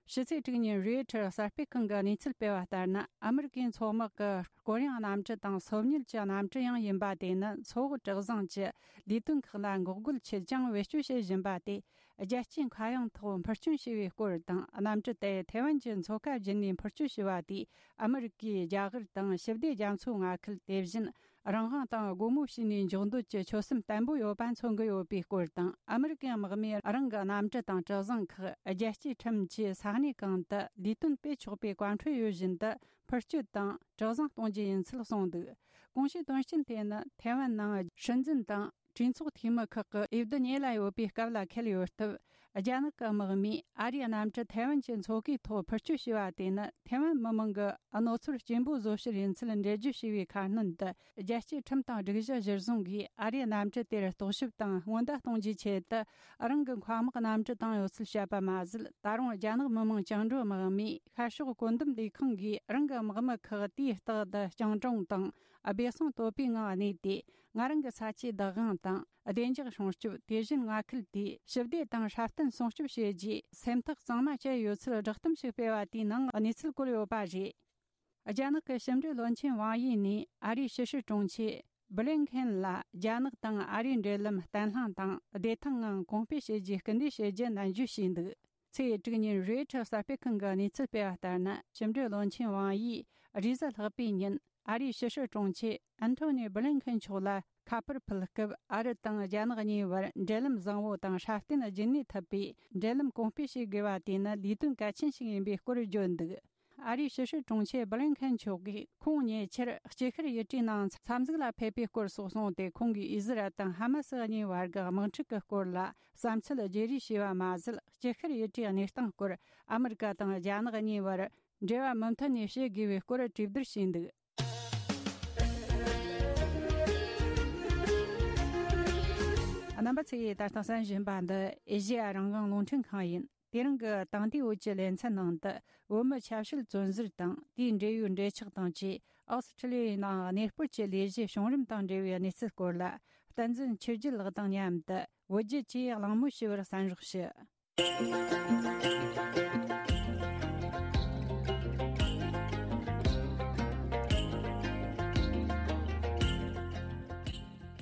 ཕྱི་ཚེས་དྲུག་ཉིན་རོའི་ཊར་གསར་སྤེལ་ཁང་གིས་གནས་ཚུལ་སྤེལ་བ་ལྟར་ན། ཨ་མི་རི་ཀའི་མཚོ་དམག་གི་སྐོར་གཡེང་གནམ་གྲུ་དང་སོ་ཉུལ་གྱི་གནམ་གྲུ་ཡང་ཡིན་པ་དེ་ནི་མཚོ་འོག་གྲུ་གཟིངས་ཀྱི་ལས་དོན་ཁག་ལ་འགོག་རྒོལ་ཆེད་ཀྱང་བེད་སྤྱོད་བྱེད་བཞིན་པ་དེ། རྒྱལ་སྤྱིའི་མཁའ་དབྱིངས་ཐོག་འཕུར་སྐྱོད་བྱས་པའི་སྐོར་དང་། གནམ་གྲུ་དེ་ཐའེ་ཝན་གྱི་མཚོ་ཁ་བརྒྱུད་ནས་འཕུར་སྐྱོད་བྱས་པ་དེས་ཨ་མི་རི་ཀའི་རྒྱ་གར་དང་ཞི་བདེ་རྒྱ་མཚོའི་མངའ་ཁུལ། དེ་བཞིན་རང་དབང་དང་སྒོ་མོ་ཕྱེ་ནས་འཇོག་འདོད་ཀྱི་ཆོད་སེམས་བརྟན་པོ་ཡོད་པ་མཚོན་གྱི་ཡོད་པའི་སྐོར་དང་། ཨ་མི་རི་ཀའི་དམག་མིས་རང་གི་གནམ་གྲུ་དང་གྲུ་གཟིངས་ཁག་རྒྱལ་སྤྱིའི་ཁྲིམས་ཀྱིས་ས་གནས་གང་དུ་ལས་དོན་སྤེལ་ཆོག་པའི་བཀའ་འཁྲོལ་ཡོད་བཞིན་དུ་འཕུར་སྐྱོད་དང་གྲུ་གཟིངས་གཏོང་རྒྱུ་ཡིན་ཚུལ་གསུངས་འདུག་གོང་ཞུས་དོན་རྐྱེན་དེ་ནི་ཐའེ་ཝན་ནང་སྲིད་འཛིན་དང་གྲོས་ཚོགས་འཐུས་མི་ཁག་གི་འོས་བསྡུ་ཉེ་ལ་ཡོད་པའི་སྐབས་ལ་འཁེལ་ཡོད་སྟབས། རྒྱ་ནག་གི་དམག་མིས་ཨ་རིའི་གནམ་གྲུ་ཐའེ་ཝན་གྱི་མཚོ་ཁའི་ཐོག་འཕུར་སྐྱོད་བྱས་པ་དེ་ནི་ཐའེ་ཝན་མི་མང་གི་གནོད་འཚེར་སྐྱེན་པོ་བཟོ་ཕྱིར་ཡིན་ཚུལ་འགྲེལ་བརྗོད་བྱས་པའི་ཁ་སྣོན་དུ། རྒྱལ་སྤྱིའི་ཁྲིམས་དང་སྒྲིག་གཞི་གཞིར་བཟུང་གིས་ཨ་རིའི་གནམ་གྲུ་དེར་རྟོག་ཞིབ་དང་སྔོན་བརྡ་གཏོང་རྒྱུའི་ཆེད་དུ། རང་གི་མཁའ་དམག་གནམ་གྲུ་བཏང་ཡོད་ཚུལ་བཤད་པ་མ་ཟད། ད་རུང་རྒྱ་ནག་མི་དམངས་བཅིངས་འགྲོལ་དམག་མིས་ཤར་ཕྱོགས་བཀོད་འདོམས་ལས་ཁང་གིས་རང་གི་དམག་མི་ཁག་དུས་རྟག་ཏུ་སྤྱང་གྲུང་དང་སྦས་གསང་དོད་པོའི་ངང་གནས་ཏེ། ང་རང་གི་ས་ཆའི་བདག་དབང་དང་བདེ་འཇགས་སྲུང་སྐྱོབ། དེ་བཞིན་མངའ་ཁུལ་དེའི་ཞི་བདེ་དང་སྲ་བརྟན་སྲུང་སྐྱོབ་བྱེད་རྒྱུའི་སེམས་ཐག་གཙང་མ་བཅད་ཡོད་ཚུལ་བསྒྲགས་གཏམ་ཞིག་སྤེལ་བ་དེའི་ནང་གནས་ཚུལ་བཀོད་ཡོད་པ་རེད། རྒྱ་ནག་གི་ཕྱི་འབྲེལ་བློན་ཆེན་ཝང་ཡི་ནས་ཨ་རིའི་ཕྱི་སྲིད་དྲུང་ཆེ་བྷི་ལིན་ཁེན་ལ་རྒྱ་ནག་དང་ཨ་རིའི་འབྲེལ་ལམ་བརྟན་ལྷིང་དང་བདེ་ཐང་ངང་གོང་སྤེལ་བྱེད་རྒྱུའི་སྐུལ་འདེད་བྱེད་རྒྱུ་ནན་བརྗོད་བྱས་འདུག་ཚེས་དྲུག་ཉིན་རོའི་ཊར་གསར་སྤེལ་ཁང་གི་གནས་ཚུལ་སྤེལ་བ་ལྟར་ན། ཕྱི་འབྲེལ་བློན་ཆེན་ཝང་ཡིས་རེས་གཟའ་ལྷག་པའི་ཉིན་ཨ་རིའི་ཕྱི་སྲིད་དྲུང་ཆེ་ཨན་ཐོ་ནི་བྷི་ལིན་ཁེན་མཆོག་ལ་ཁ་པར་ཕུལ་སྐབས། ཨ་རི་དང་རྒྱ་ནག་གཉིས་བར་འབྲེལ་ལམ་བཟང་བོ་དང་སྲ་བརྟན་རྒྱུན་གནས་ཐུབ་པའི་འབྲེལ་ལམ་གོང་སྤེལ་བྱེད་དགོས་པ་དེ་ནི་ལས་དོན་གལ་ཆེན་ཞིག་ཡིན་པའི་སྐོར་བརྗོད་འདུག་ཨ་རིའི་ཕྱི་སྲིད་དྲུང་ཆེ་སྦི་ལིན་ཁན་མཆོག་གིས་ཁོང་ཉེ་ཆར་སྐྱིད་ཤར་ཡུལ་གྲུའི་ནང་འཚམས་གཟིགས་ལ་ཕེབས་པའི་སྐོར་སོགས་གསུངས་ཏེ། ཁོང་གིས་ཨི་ཟི་རལ་དང་ཧ་མ་སི་གཉིས་བར་གྱི་དམག་འཁྲུག་གི་སྐོར་ལ་བསམ་ཚུལ་བརྗེ་རེས་བྱས་པ་མ་ཟད། སྐྱིད་ཤར་ཡུལ་གྲུའི་གནས་སྟངས་སྐོར་ཨ་མི་རི་ཀ་དང་རྒྱ་ནག་གཉིས་བར་འབྲེལ་བ་མུ་མཐུད་ནས་བྱེད་དགོས་པའི་སྐོར་གྲོས་བསྡུར་བྱས་འདུག་རྣམ་པ་ཚོས་ད་ལྟ་གསན་བཞིན་པ་འདི་ཨེ་ཤེ་ཡ་རང་དབང་རླུང་འཕྲིན་ཁང་ཡིན། དེ་རིང་གི་དེང་དུས་འོད་ཀྱི་ལེ་ཚན་ནང་དུ། བོད་མི་ཆབ་སྲིད་བཙོན་ཟུར་དང་དེའི་འབྲེལ་ཡོད་འབྲེལ་ཆགས་དང་བཅས། ཨོ་སི་ཁྲི་ལི་ཡའི་ནང་གནས་སྤོར་གྱི་ལས་གཞི་བྱུང་རིམ་དང་འབྲེལ་བའི་གནས་ཚུལ་སྐོར་ལ། བསྟན་འཛིན་ཆོས་རྒྱལ་ལགས་དང་མཉམ་དུ་བོད་བརྒྱུད་ཀྱིས་གླེང་མོལ་ཞུ་བར་གསན་རོགས་ཞུ།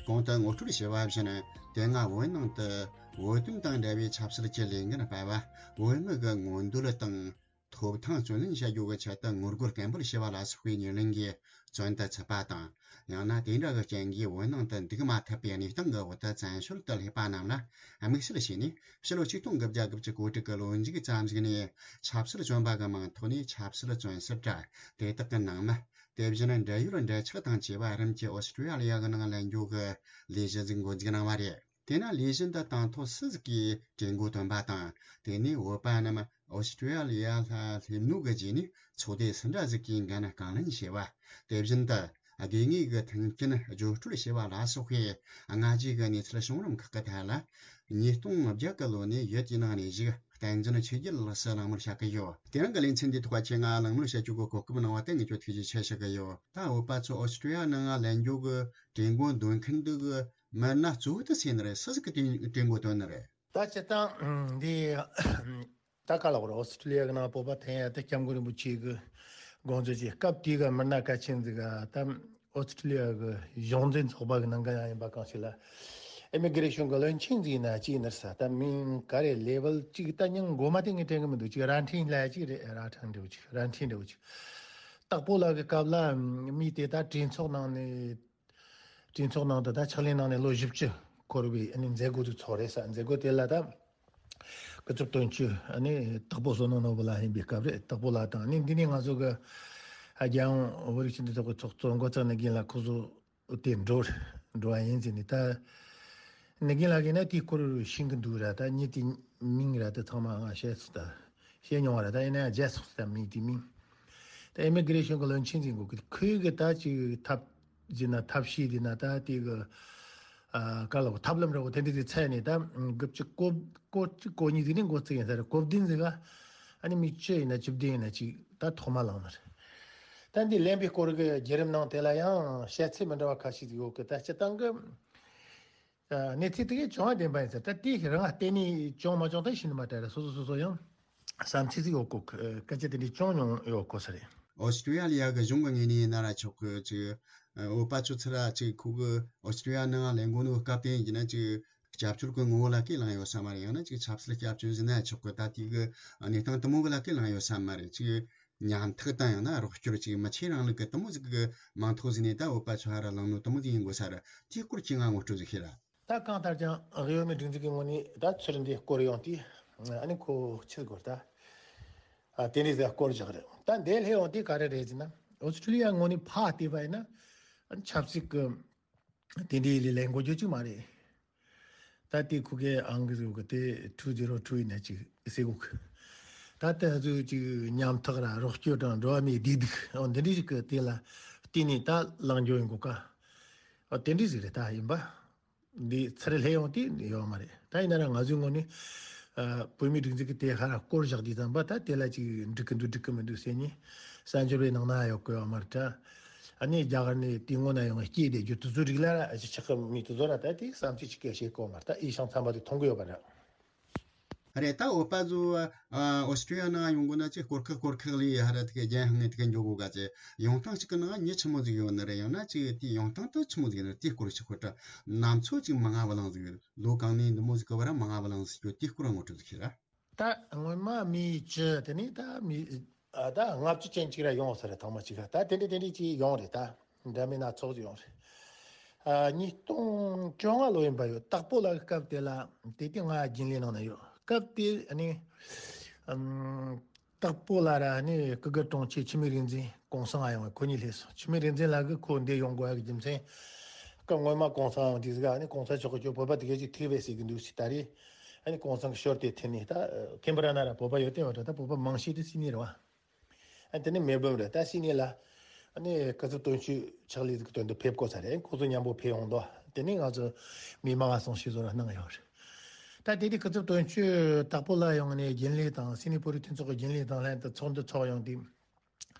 གོང་དུ་ངོ་སྤྲོད་བྱས་པ་བཞིན། དེ་སྔ་བོད་ནང་དུ་བོད་དོན་དང་འབྲེལ་བའི་ཆབ་སྲིད་ཀྱི་ལས་འགན་སྤེལ་བ། བོད་མི་གི་མངོན་འདོད་དང་ཐོབ་ཐང་རྩོད་ལེན་བྱ་རྒྱུ་གི་ཆེད་དུ་ངོ་རྒོལ་སྐད་འབོད་བྱས་པ་ལ་སོགས་པའི་ཉེར་ལེན་གྱིས་བཙོན་དུ་ཚུད་པ་དང་། ཡང་ན་དེ་འདྲ་གི་རྐྱེན་གྱིས་བོད་ནང་དུ་འདུག་མ་ཐུབ་པའི་གནས་སྟངས་ཀྱི་འོག་ཏུ་བཙན་བྱོལ་དུ་སླེབས་པ་རྣམས་ལ་དམིགས་བསལ་བྱས་ནས། ཕྱི་ལོ་ཆིག་སྟོང་དགུ་བརྒྱ་དགུ་བཅུ་གོ་དྲུག་གི་ལོ་མཇུག་ཙམ་ཞིག་ནས་ཆབ་སྲིད་བཙོན་པ་གི་མིང་ཐོག་ནས་ཆབ་སྲིད་བཙོན་ཟུར་དྲ་དེ་དག་གི་ནང་མི། དེ་བཞིན་འབྲེལ་ཡོད་འབྲེལ་ཆགས་དང་བཅས་པ་རིམ་གྱིས་ཨོ་སི་ཀྲི་ཡ་ལི་ཡ་གི་ནང་ལེན་རྒྱུ་གི་ལས་གཞི་ཟིག་འགོ་འཛུགས་གནང་བ་རེད། དེས་ན་ལས་གཞི་འདི་དང་ཐོག་སུ་ཟིག་གིས་གྲོས་འགོ་བཏོན་པ་དང་། དེ་ནས་བོད་པ་རྣམས་ཨོ་སི་ཀྲི་ཡ་ལི་ཡ་ལ་སླེབས་ནོ་གི་རྗེས་ནས་ཚོགས་སྡེ་སུ་འདྲ་ཟིག་གིས་འགན་རྐང་ལེན་བྱས་པ། དེ་བཞིན་དུ་དགོས་ངེས་ཀྱི་མཐུན་རྐྱེན་བརྗོད་སྤྲོད་བྱས་པ་ལ་སོགས་པའི་སྔ་རྗེས་ཀྱི་གནས་ཚུལ་བྱུང་རིམ་ཁག་གི་ཐད་ལ། ཉིས་སྟོང་བརྒྱད་ཀྱི་ལོ་ནས་ཡོད་ཀྱི་ནང་ནས་བཞུགས་བསྟན་འཛིན་ཆོས་རྒྱལ་ལགས་སུ་གླེང་མོལ་བྱ་གི་ཡོད། དེ་རིང་གི་ལེ་ཚན་འདིའི་ཐོག་ཁྱེད་ང་གླེང་མོལ་བྱ་རྒྱུ་གི་གོ་སྐབས་གནང་བ་དེ་ངས་ཁྱོད་ཐུགས་རྗེ་ཆེ་ཞུ་གི་ཡོད། ད་བོད་པ་ཚོ་ཨོ་སི་ཀྲི་ཡ་ནང་ལེན་རྒྱུ་གི་གྲོས་འགོ་འདོན་མཁན་འདི་གི་མི་སྣ་གཙོ་བོ་དེ་སུ་ཡིན་ནི་རེད། སུ་ཟིག་གིས་དེ་གྲོས་འགོ་བཏོན་ནི་རེད། ད་སྤྱིར་བཏང་འདི་ད་ག་ལ་བར་ཨོ་སི་ཀྲི་ལི་ཡ་གི་ནང་བོད་པ་ཐོན་ཡ་དེ་སྐྱབས་མགོན་རིན་པོ་ཆེ་གི་དགོངས་ཚུལ་གྱི་སྐབས་དེའི་གི་མི་སྣ་གལ་ཆེན་ཟིག་ག་ད་ཨོ་སི་ཀྲི་ལི་ཡ་གི་གཞུང་འཛིན་ཚོགས་པ་གི་ནང་གི་ཡང་ཡིན་པ་གང་ཞིག་ལ་ཨི་མི་གི་རེ་ཤོན་གི་བློན་ཆེན་ཟིག་ཡིན་ན་ཅི་ཡིན་ནི་རེད་ས། ད་མིང་ག་རེ་ལེ་ཝལ་གཅིག་ད་མིང་མགོ་མ་དེ་ངས་དྲན་གི་མི་འདུག་ཅིག་རྭ་འཕྲིན་ལབ་ཡ་ཅིག་རེད། རྭ་འཕྲིན་འདྲ་བོ་ཅིག་རྭ་འཕྲིན་འདྲ་བོ་ཅིག་སྟག་པོ་ལགས་ཀྱི་སྐབས་ལ་མི་དེ་ད་གྲོས་ཚོགས་ནང་ནས། གྲོས་ཚོགས་ནང་དུ་ད་ཕྱག་ལས་གནང་ནས་ལོ་བཞི་བཅུ་འཁོར་བའི་ཨ་ནི་མཛད་སྒོ་དེ་ཚོགས་རེད་ས། མཛད་སྒོ་དེ་ལ་ད་སྐུ་ཚབ་དོན་གཅོད་ཨ་ནི་སྟག་པོ་བསོད་ནམས་ནོར་བུ་ལགས་ཡིན་པའི་སྐབས་རེད། སྟག་པོ་ལགས་དང་ཨ་ནི་འདི་ནས་ང་ཚོ་གི་རྒྱལ་ཡོངས་བོད་རིགས་སྤྱི་མཐུན་ཚོགས་པའི་ཚོགས་གཙོ་འགོ་གཙོ་ནི་རྒན་ལགས་ཁོ་ཚོ་དེ་འགྲོ་འགྲོ་བ་ཡིན་ཟེར་ནས། ད་ནི་རྒན་ལགས་ཀྱིས་ན་དེའི་སྐོར་ཤེས་ཀྱི་འདུག་ར། ད་མི་དེ་མིང་ར་ད་ཚང་མ་ང་བཤད་ཚུལ་ད། བཤད་མྱོང་བ་རེད། ད་ཡིན་ན་ཡང་བརྗེད་སོང་ཟེར། མིང་དེ་མིང་། ད་ཨི་མི་གི་རེ་ཤོན་གི་བློན་ཆེན་ཟིག་འགོ་གི་ཁོས་གི་ད་ཅིག་ཐབས་ཟིན་ན་ཐབས་ཤེས་ཟིན་ན་ད་དེ་གི་ཨ་ག་ལ་གོ་ཐབས་ལམ་ར་གོ་དེ་འདྲ་ཟིག་འཚོལ་ནས། ད་དགུ་བཅུ་གོ་གོ་གཅིག་གོ་གཉིས་ཟིག་ནས་འགོ་བཙུགས་ཡིན་ས་རེད། གོ་བདུན་ཟིག་ག་ཨ་ནི་མི་བཅུ་ཡིན་ན་བཅུ་བདུན་ཡིན་ན་ཅིག་ད་ཐོག་མ་ལངས་ནི་རེད། ད་འདི་ལེན་པའི་སྐོར་གི་བརྒྱུད་རིམ་ནང་དེ་ལ་ཡང་བཤད་ཚུལ་མི་འདྲ་བ་ཁ་ཤས་ཟིག་ཡོད་གི། ད་སྤྱིར་བཏང་གི་ཨ་གནས་ཚུལ་དེ་གའི་བྱུང་བ་བདེན་པ་ཡིན་ཟེར། ད་དེ་རང་བརྟེན་ནས་བྱུང་མ་བྱུང་ད་ཤེས་ནི་མ་རེད། སོ་སོ་སོ་སོ་ཡང་བསམ་ཚུལ་ཟིག་ཡོད་གོ། སྐད་ཆ་དེ་འདྲའི་བྱུང་མྱོང་ཡོད་གོ་ས་རེད། ཨོ་སི་ཀྲི་ཡ་ལི་ཡ་གི་གཞུང་གི་ངོས་ནས་ཡིན་ན་ར་ཆོག་གི། ཅིག་བོད་པ་ཚོ་ཚུར་ར་ཅིག་ཁོ་གི་ཨོ་སི་ཀྲི་ཡ་ནང་ལེན་གོ་ནོ་སྐབས་དེ་ཡིན་ན་ཅིག་སྐྱབས་བཅོལ་གི་ངོ་བོ་ལ་ཁས་བླངས་ཡོད་ས་མ་རེད། ཡང་ན་ཅིག་ཆབ་སྲིད་སྐྱབས་བཅོལ་ཟེར་ན་ཆོག་གི། ད་དེ་གི་གནས་སྟངས་དེ་མོ་གི་ལ་ཁས་བླངས་ཡོད་ས་མ་རེད། ཅིག་ཉམ་ཐག་དང་ཡང་ན་རོགས་སྐྱོར་ཅིག་མི་ཆེ་རིང་ལུགས་ཀྱི་དེ་མོ་ཟིག་གི་མིང་ཐོག་ཟིག་ནས་ད་བོད་པ་ཚོ་ཧ་ར་ལངས་ནོ་དེ་མོ་ཟིག་ཡིན་དགོས་ས་རེད། དེའི་སྐོར་ཁྱེད་ང་ངོ་སྤྲོད་ཟིག་ཤེས་ར། ད་གང་ལྟར་ཀྱང་གཡོ་མེད་སྒྲིག་འཛུགས་ཀྱི་ངོས་ནས་ད་ཚུར་འདི་སྐོར་ཡོང་དུས་ཨ་ནི་ཁོ་ཕྱིར་སྐོར་ད་ཨ་དེ་འདྲའི་ཟིག་སྐོར་བཞག་རེད། ད་འདི་སླེབས་ཡོང་དུས་ག་རེ་རེད་ཟེར་ན། ཨོ་སི་ཀྲི་ལི་ཡ་ངོས་ནས་ཕར་བལྟས་པ་ཡིན་ན་ཨ་ནི་ཆབ་སྲིད་ཀྱི་དེ་འདྲའི་ལས་ལས་འགོ་རྒྱུ་ཅིག་མ་རེད། ད་དེ་ཁུ་གེ་ཨང་གི་ཟེར་གི་དེ་two zero two ཡིན་ན་ཅིག་ཟེར་གོ་གི། ད་དེ་ཚོ་ཅིག་ཉམ་ཐག་ར་རོགས་སྐྱོར་དང་འགྲོ་བ་མིའི་བདེ་སྡུག་འོ་འདི་འདྲའི་ཞིག་གི་དེ་ལ་བརྟེན་ནས་ད་ལངས་རྒྱུ་ཡིན་གོ་ག་འོ་དེ་འདྲའི་ཟིག་རེད། ད་ཡིན་པ་འདི་ཚུར་སླེབས་ཡོང་དུས་ཡོད་མ་རེད། ད་ཡིན་ན་ར་ང་ཚོའི་ངོས་ནས་ཨ་བོད་མིའི་སྒྲིག་འཛུགས་ཀྱི་དེ་ཧ་ར་སྐོར་བཞག་དུས་ཙམ་པ་ད་དེ་ལ་ཅིག་འགྲིག་གི་འདུག་འགྲིག་གི་མི་འདུག་ཟེར་ནས་གསར་འབྱོར་བའི་ནང་ན་ཡོད་གི་ཡོད་མ་རེད་ད། ཨ་ནི་རྒྱ་གར་ནས་དེ་སྔོན་ན་ཡོང་བའི་སྐྱེས་བསྡད་རྒྱུ་དེ་ཚོའི་རིགས་ལ་ར་ཅིག་ཆགས་གི་མི་དེ་ཚོ་ར་ད་དེ་བསམ་ཚུལ་ཅིག་སྐད་བཤད་གོ་མ་རེད། ད་ཨི་ཤང་ཚན་པ་དེ་མཐོང་གི་ཡོད་པ་རེད། རེད། ད་བོད་པ་ཚོ་ཨ་ཨོ་སི་ཀྲི་ཡ་ནང་ཡོང་དགོས་ན་ཅིག་སྐོར་ཁག་སྐོར་ཁག་ལས་ཧ་ར་དེ་ག་རྒྱལ་ཧང་ངེ་དེ་ག་འགྱོ་དགོས་ག་ཅེ། ཡོང་སྟངས་ཅིག་གི་ནང་མྱི་ཆི་མོ་ཟིག་ཡོད་ནི་རེད། ཡང་ན་ཅིག་དེ་ཡོང་སྟངས་དེ་ཆི་མོ་ཟིག་ཡོད་ནི་རེད། དེ་སྐོར་ཅིག་ཁོ་ད་ནམ་ཚོད་ཅིག་མ་ང་བ་ལང་ཟིག་ཡོད། ལོ་གང་ནས་འདི་མོ་ཟིག་གི་བར་མ་ང་བ་ལང་ཟིག་ཡོད། དེ་སྐོར་ངོ་སྤྲོད་ཟིག་ཤེས་ར། ད་སྔོན་མ་མི་བཅུ་དེ་ནས་ད་མི་ཨ་ད་ལྔ་བཅུ་ཅན་ཅིག་ར་ཡོང་ས་རེད། ཐེངས་མ་གཅིག་ར་ད་དེ་འདྲ་དེ་འདྲ་ཅིག་ཡོང་རེད། ད་འདྲ་མིན་སྣ་ཚོགས་ཅིག་ཡོང་རེད། ཨ་ཉིས་སྟོང་བཅོ་ལྔ་ལོ་ཡིན་པ་ཡོད། སྟག་པོ་ལགས་སྐབས་དེ་ལ་དེ་དུས་ང་རྒྱུན་ལས་ནང་ན་ཡོད། སྐབས་དེ་ཨ་ནི་ཨམ་ སྟག་པོ་ལ་ར་ནི་སྐུ་སྒེར་དྲུང་ཆེ་འཆི་མེད་རིག་འཛིན་གོང་ས་ཡོང་བའི་ཁོ་གཉིས་སླེབས་སོང་། འཆི་མེད་རིག་འཛིན་ལགས་ཀྱིས་ཁོ་འདི་ཡོང་དགོས་ཡ་གི་རྒྱུ་མཚན། སྐབས་སྔོན་མ་གོང་ས་ཡོང་དུས་ཟིག་ཨ་ནི་གོང་ས་མཆོག་གིས་ཁྱོད་བོད་པ་དེ་གས་ཅིག་ཐུག་པས་ཟེར་གི་འདུག་ཟེར། ད་རེས་ཨ་ནི་གོང་ས་གི་ཞོར་དེ་ཐེན་ནས་ད་ཁེམ་བྷ་ར་ན་ར་བོད་པ་ཡོད་དེ་བ་འདྲ། ད་བོད་པ་མང་ཤོས་དེ་སིད་ནི་རེད་བ། ཨ་དེ་ནས་མེལ་བྷོན་རེད། ད་སིད་ནི་ལ་ཨ་ནི་སྐུ་ཚབ་དོན་གཅོད་ཕྱག་ལས་ཀྱི་དོན་དུ་ཕེབས་དགོས་ས་རེད། ཁོ་ཚོ་མཉམ་པོ་ཕེབས་ཡོང་དོ། དེ་ནས་ང་ཚོ་མི་མང་ང་སོང་ཞིག་བཟོ་ར་གནང་ཡོད་རེད། ད་དེ་དུས་སྐུ་ཚབ་དོན་གཅོད་སྟག་པོ་ལ་ཡོང་ནས་རྒྱུན་ལས་དང་སིད་ནི་བོད་རིགས་མཐུན་ཚོགས་ཀྱི་རྒྱུན་ལས་དང་ལྷན་དུ་ཚོགས་འདུ་ཚོགས་ཡོང་དུས།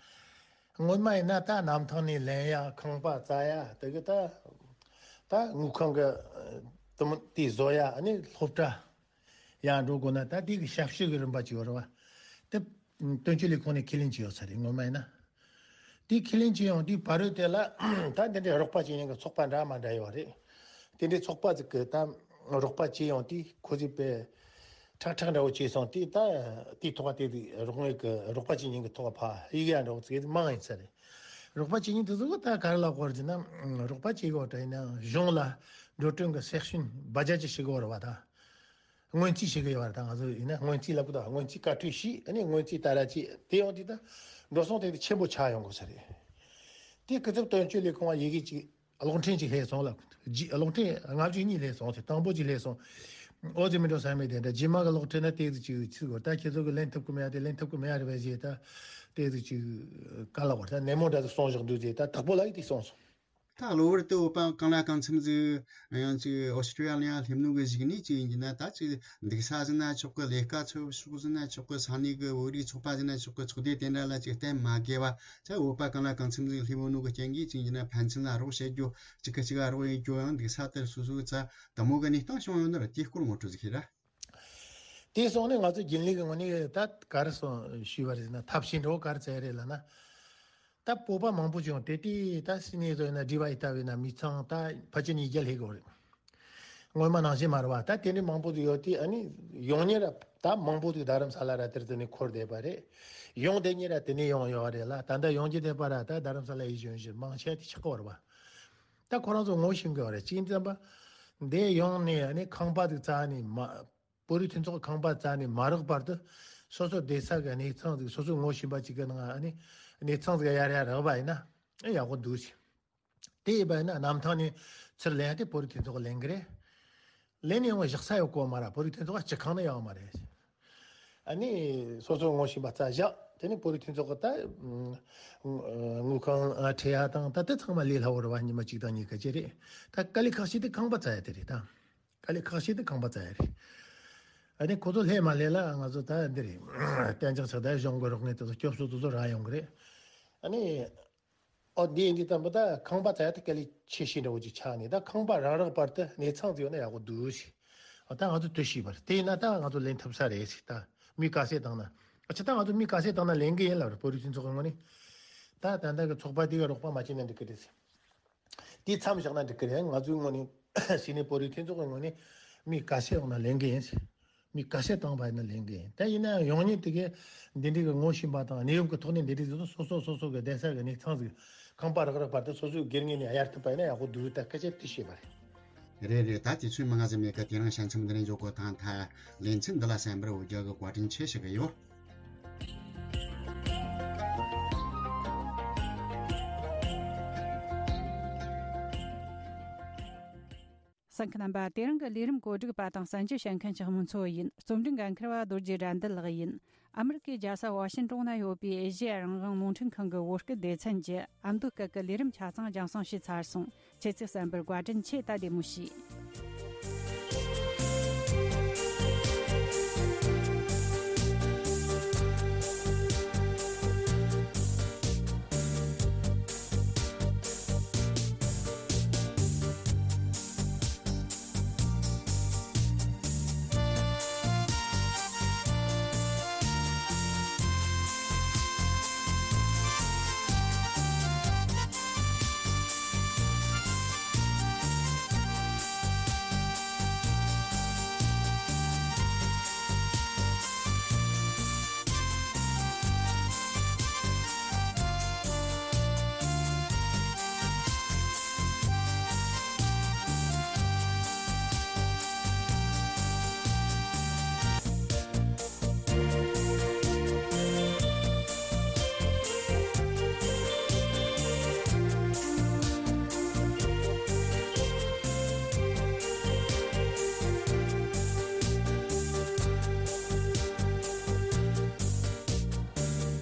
སྔོན་མ་ཡིན་ན་ད་གནམ་ཐང་ནས་ལེན་ཡ། ཁང་པ་བཙལ་ཡ། དེ་གི་ད་ད་དངུལ་ཁང་གི་དུམ་དེ་བཟོ་ཡ། ཨ་ནི་སློབ་གྲྭ་ཡར་འགྲོ་དགོས་ན་ད་དེ་གི་ཞབས་ཞུ་གི་རིམ་པ་ཅིག་ཡོད་རེད་བ། དེ་དོན་གཅོད་ལས་ཁུངས་ནས་ཁས་ལེན་བྱས་ཡོད་ས་རེད། སྔོན་མ་ཡིན་ན་དེ་ཁས་ལེན་བྱས་ཡོང་དུས་བར་དུ་དེ་ལ་ད་འདི་འདྲའི་རོགས་པ་བྱེད་མཁན་གི་ཚོགས་པ་འདྲ་མ་འདྲ་ཡོད་རེད། དེ་འདྲའི་ཚོགས་པ་ཟིག་གི་ད་རོགས་པ་བྱས་ཡོང་དུས་ཁོ་ཚོས་དཔེ་ཁྲག་ཁྲག་འདྲ་བོ་བྱས་སོང་དུས། ད་དེའི་ཐོག་དེ་དུས་རོགས་དངུལ་གི་རོགས་པ་བྱེད་མཁན་གི་ཐོག་ཕ་ཡི་གེ་འདྲ་བོ་ཚིག་མང་ཡིན་ས་རེད། རོགས་པ་བྱེད་མཁན་དེ་ཚོ་གི་ད་ག་རེ་ལབ་དགོས་རེད་ཟེར་ན། རོགས་པ་བྱེད་དགོས་དྲ་ཡིན་ན་གཞུང་ལ་འགྲོ་གྲོན་གི་སེག་ཤན་བ་ཇ་ཅི་ཞིག་གི་བར་བ་ད། སྔོན་རྩིས་བྱེད་གི་ཡོད་རེད། ད་ང་ཚོ་ཡིན་ན་སྔོན་རྩིས་ལབ་གི་འདུག་སྔོན་རྩིས་བཀའ་འཁྲོལ་ཞུས། ཨ་ནི་སྔོན་རྩིས་ད་ར་ཅིག་དེ་ཡོང་དུས་ད་འགྲོ་སོང་དེ་དེ་ཆེན་པོ་ཆགས་ཡོང་དགོས་ས་རེད། དེ་སྐུ་ཚབ་དོན་གཅོད་ལས་ཁུངས་ལ་ཡི་གེ་ཅིག་གློག་འཕྲིན་ཅིག་སླེབས་སོང་ལ། རྗེས་གློག་འཕྲིན་ལྔ་བཅུ་གཉིས་སླེབས་སོང་ཟེར། དང་པོ་ཅིག་སླེབས་སོང་། ཨོ་ཙི་མི་འགྲོ་ས་མེད་དེ་འདྲ། རྗེས་མ་གི་གློག་འཕྲིན་ན་དེ་ཅིག་ཅིག་གོ། ད་ཁྱེད་ཚོ་གི་ལེན་ཐུབ་གི་མེད་ཡ་དེ་ལེན་ཐུབ་གི་མེད་ཡ་རེད་པས་ཟེར། ད་དེ་ཅིག་ཅིག་ག་ལ་བར་ད་ནན་མོ་འདྲ་ཟིག་གསུངས་བཞག་འདུག་ཟེར། ད་དྭགས་པོ་ལགས་ཀྱིས་དེ་གསུངས་སོང་། ད་གློ་བུར་དུ་བོད་པ་གང་ལ་གང་འཚམ་ཟིག་ཡང་ཅིག་ཨོ་སི་ཀྲི་ཡ་ལི་ཡ་སླེབས་ནོ་གི་གཞུག་ནས་ཅིག་ཡིན་གྱི་ན། ད་ཅིག་འདུག་ས་ཟིན་ན་ཆོག་གི། ལས་ཀ་ཚོ་ཕྱོགས་ཟིན་ན་ཆོག་གི། ས་གནས་གི་བོད་རིགས་ཚོགས་པ་ཟིན་ན་ཆོག་གི། ཚོགས་སྡེ་དེ་འདྲ་ལ་ཅིག་གཏན་མ་དགོས་པ། ད་བོད་པ་གང་ལ་གང་འཚམ་ཟིག་སླེབས་ཡོད་ནོ་གི་རྐྱེན་གྱིས་ཅིག་ཡིན་གྱི་ན་ཕན་ཚུན་ལ་རོགས་བྱེད་རྒྱུ། གཅིག་གིས་གཅིག་ག་རོགས་ཡེད་རྒྱུ། ཡང་འདུག་ས་དེར་སོ་སོའི་རྩ་དེ་མོ་གི་གནས་སྟངས་བྱུང་ཡོད་ན་ར། དེའི་སྐོར་ངོ་སྤྲོད་ཟིག་ཤེས་ར། དེ་སོང་ནས་ང་ཚོ་རྒྱུན་ལས་ཀྱི་ངོས་ནས་ད་ག་རེ་སོང་ཞུས་པ་རེད་ཟེར་ན། ཐབས་ཤེས་འདྲ་བོ་ག་རེ་བཙལ་རེད་ལབ་ན། ད་བོད་པ་མང་པོ་བྱུང་། དེ་དུས་ད་སིད་ནི་ཚོ་ཡིན་ན་ཌི་བ་ཡི་ལྟ་བུ་ཡིན་ན་མི་ཚང་ད་ཕལ་ཆེར་ཉིས་བརྒྱ་སླེབས་ཀྱི་ཡོད་རེད། སྔོན་མ་ནང་བཞིན་མ་རེད་བ། ད་དེ་འདྲའི་མང་པོ་ཟིག་ཡོད་དུས། ཨ་ནི་ཡོང་མཁན་ར་ད་མང་པོ་ཟིག་རྡ་རམ་ས་ལ་ར་དེར་དེ་ནས་འཁོར་བསྡད་པ་རེད། ཡོང་བསྡད་མཁན་ར་དེ་ནས་ཡོང་ཡོད་རེད་ལ། ད་ལྟ་ཡོང་རྒྱུ་བསྡད་པ་ར་ད་རྡ་རམ་ས་ལ་ཡིན་གཞོན་གཞོན་མང་ཆེ་བ་དེ་ཆགས་ཀྱི་ཡོད་རེད་བ། ད་ཁོ་རང་ཚོ་ངོ་ཤེས་ཀྱི་ཡོད་རེད། གཅིག་ཙམ་པ་འདི་ཡོང་ནས་ཨ་ནི་ཁང་པ་ཟིག་བཙལ་ནས་མ། བོད་རིགས་མཐུན་ཚོགས་ཁང་པ་བཙལ་ནས་མ་རག་བར་དུ་སོ་སོ་བསྡད་ས་གི་གནས་ཚང་ཟིག་སོ་སོའི་ངོ་ཤེས་པ་ཅིག་གི་ནང་ཨ་ནི་གནས་ཚང་ཟིག་ཡར་ཡར་རག་པ་ཡིན་ན་ཨེ་ཡག་པོ་འདུག་ཟེར། དེ་ཡིན་པ་ཡིན་ན་གནམ་ཐང་ནས་ཚུར་ལེན་ཡ་དེ་བོད་རིགས་མཐུན་ཚོགས་ལེན་གི་རེད། ལེན་ནས་ཡོང་བཞག་ས་ཡོད་གོ་མ་ར། བོད་རིགས་མཐུན་ཚོགས་ཀྱི་སྤྱི་ཁང་ནས་ཡོང་མ་རེད། ཨ་ནི་སོ་སོའི་ངོ་ཤེས་པ་བཙལ་བཞག་དེ་ནས་བོད་རིགས་མཐུན་ཚོགས་ཀྱི་ད་དངུལ་ཁང་ཁྲལ་ཡ་དང་ད་དེ་ཚང་མ་ལས་སླ་བོ་རེད་བ། ཉི་མ་གཅིག་དང་གཉིས་ཀ་ཅིག་རེད། ད་དཀའ་ལས་ཁག་ཤོས་དེ་ཁང་པ་བཙལ་ཡ་དེ་རེད་ད། དཀའ་ལས་ཁག་ཤོས་དེ་ཁང་པ་བཙལ་ཡ་རེད། ཨ་ནི་ཁོ་ཚོ་སླེབས་མ་སླེབས་ལ་ང་ཚོ་ད་འདི་རེད། གཏན་འཇགས་ཆགས། ད་གཞུང་གི་རོགས་དངུལ་དེ་ཚོ་སྐྱོབ་གསོ་དེ་ཚོ་རག་ཡོང་གི་རེད། ཨ་ནི་ཨོ་འདི་ཡིན་དུས་ཙམ་པ་ད་ཁང་པ་བཙལ་ཡ་དེ་དཀའ་ལས་ཆེ་ཤོས་འདྲ་བོ་ཅིག་ཆགས་ནས། ད་ཁང་པ་རག་རག་བར་དུ་གནས་ཚང་ཟིག་ཡོད་ན་ཡག་པོ་འདུག་ཟེར། ཨ་ད་ང་ཚོ་དེ་ཤེས་པ་རེད། དེ་ཡིན་ན་ད་ང་ཚོ་ལེན་ཐུབ་ས་རེད་ཟེར། ད་མི་དཀའ་སེལ་བཏང་ན། ཨ་ཅེ་ད་ང་ཚོ་མི་དཀའ་སེལ་བཏང་ན་ལེན་གི་ཡིན་ལབ་རེད། བོད་རིགས་མཐུན་ཚོགས་ཀྱི་ངོས་ནས། ད་ད་ལྟ་གི་ཚོགས་པ་དེ་ག་རོགས་པ་མ་བྱས་ན་འགྲིག་གི་རེད་ཟེར། དེ་མཚམས་བཞག་ན་འགྲིག་གི་རེད། ང་ཚོའི་ངོས་ནས་སིད་ནི་བོད་རིགས་མཐུན་ཚོགས་ཀྱི་ངོས་ནས་མི་དཀའ་སེལ་འོང་ན་ལེན་གི་ཡིན། མི་དཀའ་སེལ་བཏང་བ་ཡིན་ན་ལེན་གི་ཡིན། ད་ཡིན་ན་ཡང་ཡོང་མཁན་དེ་གས་འདི་འདྲའི་གི་ངོ་ཤེས་པ་དང་གནས་བབ་ཀྱི་ཐོག་ནས་འདི་འདྲའི་ཟིག་སོ་སོ་སོ་སོ་གི་བསྡད་ས་གི་གནས་ཚང་ཟིག་ཁང་པ་རག་རག་བར་དུ་སོ་སོའི་སྒེར་ངོས་ནས་གཡར་ཐུབ་པ་ཡིན་ན་ཡག་པོ་འདུག་ད་སྐད་ཆ་དེ་བཤད་པ་རེད། རེད་རེད། ད་དུས་ཚོད་མང་ང་ཟིག་མེད་ཀ། དེ་རིང་ཞལ་འཆམ་འདི་ནས་འཇོག་གོ། ད་ད་ལེ་ཚན་འདི་ལ་གསན་པར་འོས་རྒྱ་གི་བཀའ་དྲིན་ཆེ་ཞུ་གི་ཡོད། གསན་མཁན་རྣམ་པ། དེ་རིང་གི་ལས་རིམ་གོ་སྒྲིག་པ་དང་གསན་རྒྱུ་བྱེད་མཁན་ཞིག་མུན་ཚོ་ཡིན། རྩོམ་སྒྲིག་འགན་འཁུར་བ་རྡོ་རྗེ་དགྲ་འདུལ་ལགས་ཡིན། ཨ་མི་རི་ཀའི་རྒྱལ་ས་ཝ་ཤིན་ཏོན་ན་ཡོད་པའི་ཨེ་ཤེ་ཡ་རང་དབང་རླུང་འཕྲིན་ཁང་གི་བོད་སྐད་སྡེ་ཚན་གྱི་ཨ་མདོའི་སྐད་ཀྱི་ལས་རིམ་ཆ་ཚང་རྒྱང་སྲིང་བྱས་ཚར་སོང་། ཁྱེད་ཚོས་གསན་པར་བཀའ་དྲིན་ཆེ། ད་བདེ་མོ་བྱོས།